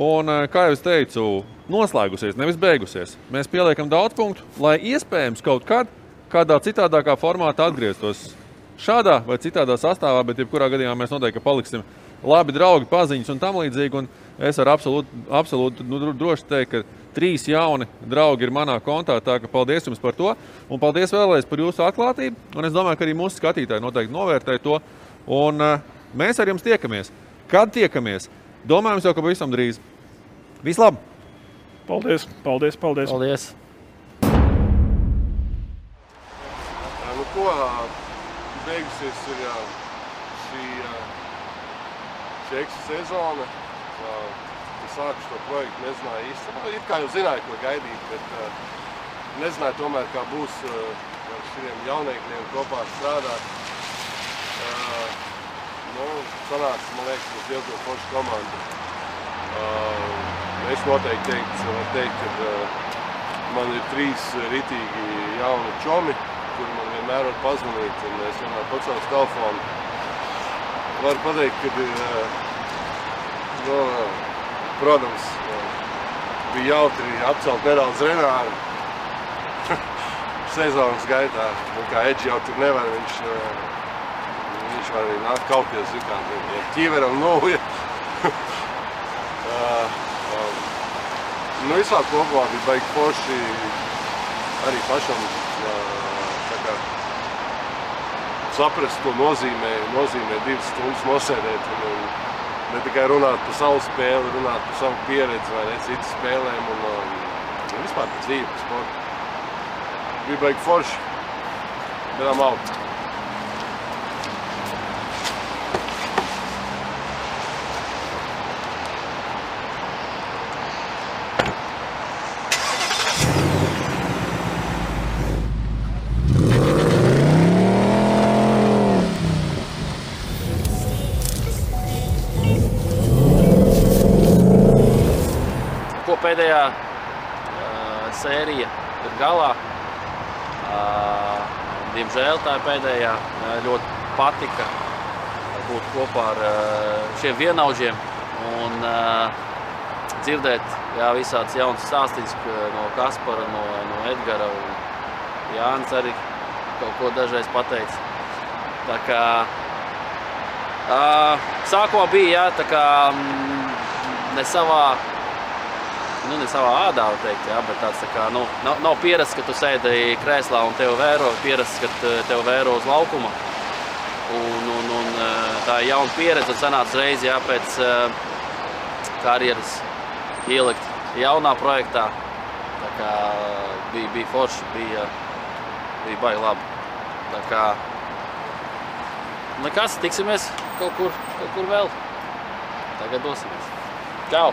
Un, kā jau es teicu, noslēgusies, nevis beigusies. Mēs pieliekam daudz punktu, lai iespējams kaut kādā citādākā formātā atgrieztos šādā vai citādā sastāvā, bet jebkurā gadījumā mēs noteikti paliksim labi draugi, paziņas un tam līdzīgi. Un es ar absolūti droši teikt, ka 3 jauni draugi ir manā kontā, tā ka paldies jums par to. Un paldies vēlreiz par jūsu atklātību. Un es domāju, ka arī mūsu skatītāji noteikti novērtē to. Un mēs ar jums tiekamies. Kad tiekamies? Domājams jau, ka pavisam drīz. Vislab! Paldies! Beigusies ir šī eksa sezona. Es sāku šo projektu, nezināju īsti. It kā jau zināju, ko gaidīt, bet nezināju tomēr, kā būs ar šiem jauniekļiem kopā strādāt. Sanāca, man liekas, mums diezgan forša komanda. Es noteikti varu teikt, ka man ir 3 ritīgi jauni čomi, kuri man vienmēr var pazvanīt, un es vienmēr pacēlu telefonu. Varu pateikt, ka protams, bija jautri apcelt nedaudz Renāru sezonas gaitā. Kā Edži jau tur nevar, viņš var arī nākt kaupties, ja ķīveram novuja. Visā kopumā bija baigi forši arī pašam saprast, ko nozīmē 2 stundas nosēdēt un ne tikai runāt par savu spēli, runāt par savu pieredzi vai ne citas spēlēm un vispār par dzīvi, par sportu. Bija baigi forši. Bedām out. Pēdējā sērija ir galā. Diemžēl tā ir pēdējā. Ļoti patika būt kopā ar šiem vienaudžiem un dzirdēt visāds jauns stāstīns no Kaspara, no Edgara un Jānis arī kaut ko dažreiz pateica. Tā kā sākumā bija, tā kā ne savā ādā, var teikt, bet tāds tā kā, nav pierasts, ka tu sēdi krēslā un tev vēro, pierasts, ka tev vēro uz laukuma. Un tā ir jauna pieredze un sanāca reizi, pēc karjeras ielikt jaunā projektā. Tā kā bija forši, bija baigi labi. Tā kā nekas, tiksimies kaut kur vēl. Tagad dosimies. Čau!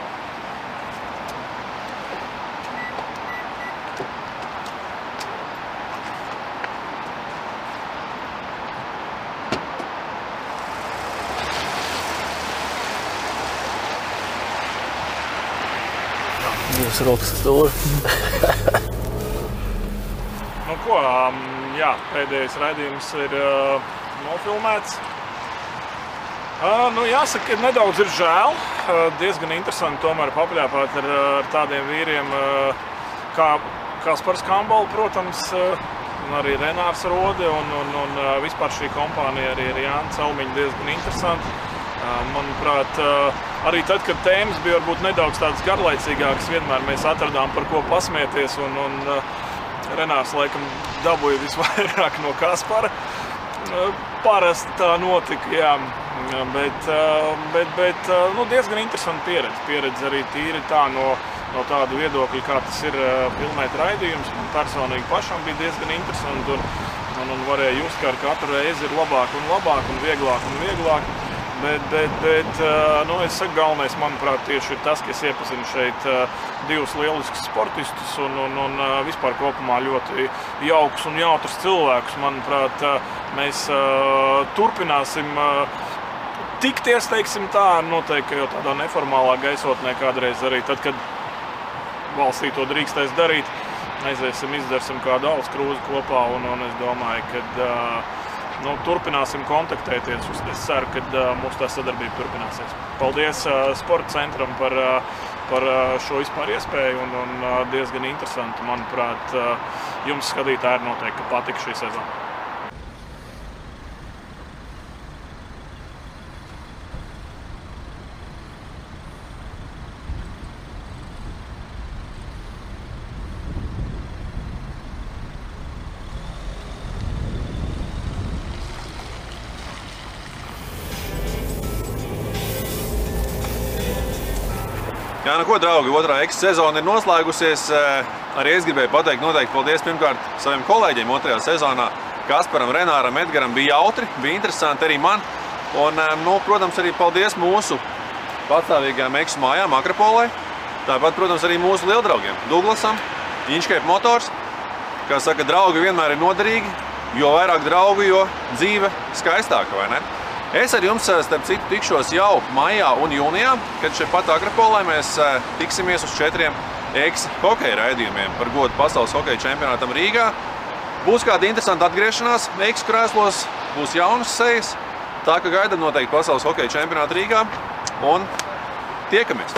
Jūs rokas stūri. Nu ko, jā, pēdējais raidījums ir nofilmēts. Jāsaka, ka nedaudz ir žēl. Diezgan interesanti tomēr papļāpāt ar tādiem vīriem kā Kaspars Kambols, protams, un arī Renārs Rode un vispār šī kompānija arī ar Jānu Celmiņu diezgan interesanti. Manuprāt, arī tad, kad tēmas bija varbūt nedaudz tādas garlaicīgākas, vienmēr mēs atradām par ko pasmieties, un Renārs laikam dabūja visvairāk no Kaspara. Parasti tā notika, jā, bet diezgan interesanti pieredze arī tīri tā no tāda viedokļa, kā tas ir filmēt raidījums. Man personīgi pašam bija diezgan interesanti, un varēja just, ka ar katru reizi ir labāk un vieglāk. Bet es saku, galvenais, manuprāt, tieši ir tas, ka es iepazinu šeit divus lieliskus sportistus un vispār kopumā ļoti jaukus un jautrus cilvēkus. Manuprāt, mēs turpināsim tikties, teiksim tā, noteikti jau tādā neformālā gaisotnē kādreiz arī tad, kad valstī to drīkstēs darīt. Aiziesim, izdarsim kādu alus krūzi kopā, un es domāju, ka turpināsim kontaktēties. Es ceru, ka mūsu tā sadarbība turpināsies. Paldies Sporta centram par šo vispār iespēju un diezgan interesanti. Manuprāt, jums skatītāji noteikti patika šī sezona. Jā, ko, draugi, otrā sezona ir noslēgusies. Arī es gribēju pateikt noteikti paldies pirmkārt saviem kolēģiem otrajā sezonā. Kasparam, Renāram, Edgaram bija jautri, bija interesanti arī man. Un, protams, arī paldies mūsu patstāvīgajām eksu mājām Akropolē. Tāpat, protams, arī mūsu lieldraugiem Douglasam, Inchcape Motors. Kā saka, draugi vienmēr ir noderīgi, jo vairāk draugu, jo dzīve skaistāka, vai ne? Es ar jums, starp citu, tikšos jau maijā un jūnijā, kad šeit pat Akropolē mēs tiksimies uz 4 hokeja raidījumiem par godu pasaules hokeja čempionātam Rīgā. Būs kāda interesanta atgriešanās krēslos, būs jaunas sejas, tā ka gaidam noteikti pasaules hokeja čempionātu Rīgā un tiekamies!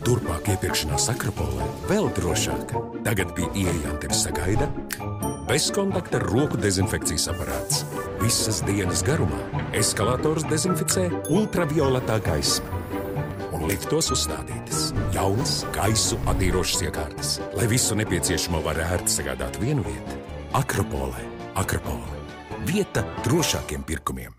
Turpmāk iepirkšanās Akropolē vēl drošāk. Tagad pie ieejām tevi sagaida bezkontakta roku dezinfekcijas aparāts. Visas dienas garumā eskalators dezinficē ultravioletā gaisma. Un liftos uzstādītas jaunas gaisu attīrošas iekārtas, lai visu nepieciešamo var ērti sagādāt vienu vietu. Akropolē. Vieta drošākiem pirkumiem.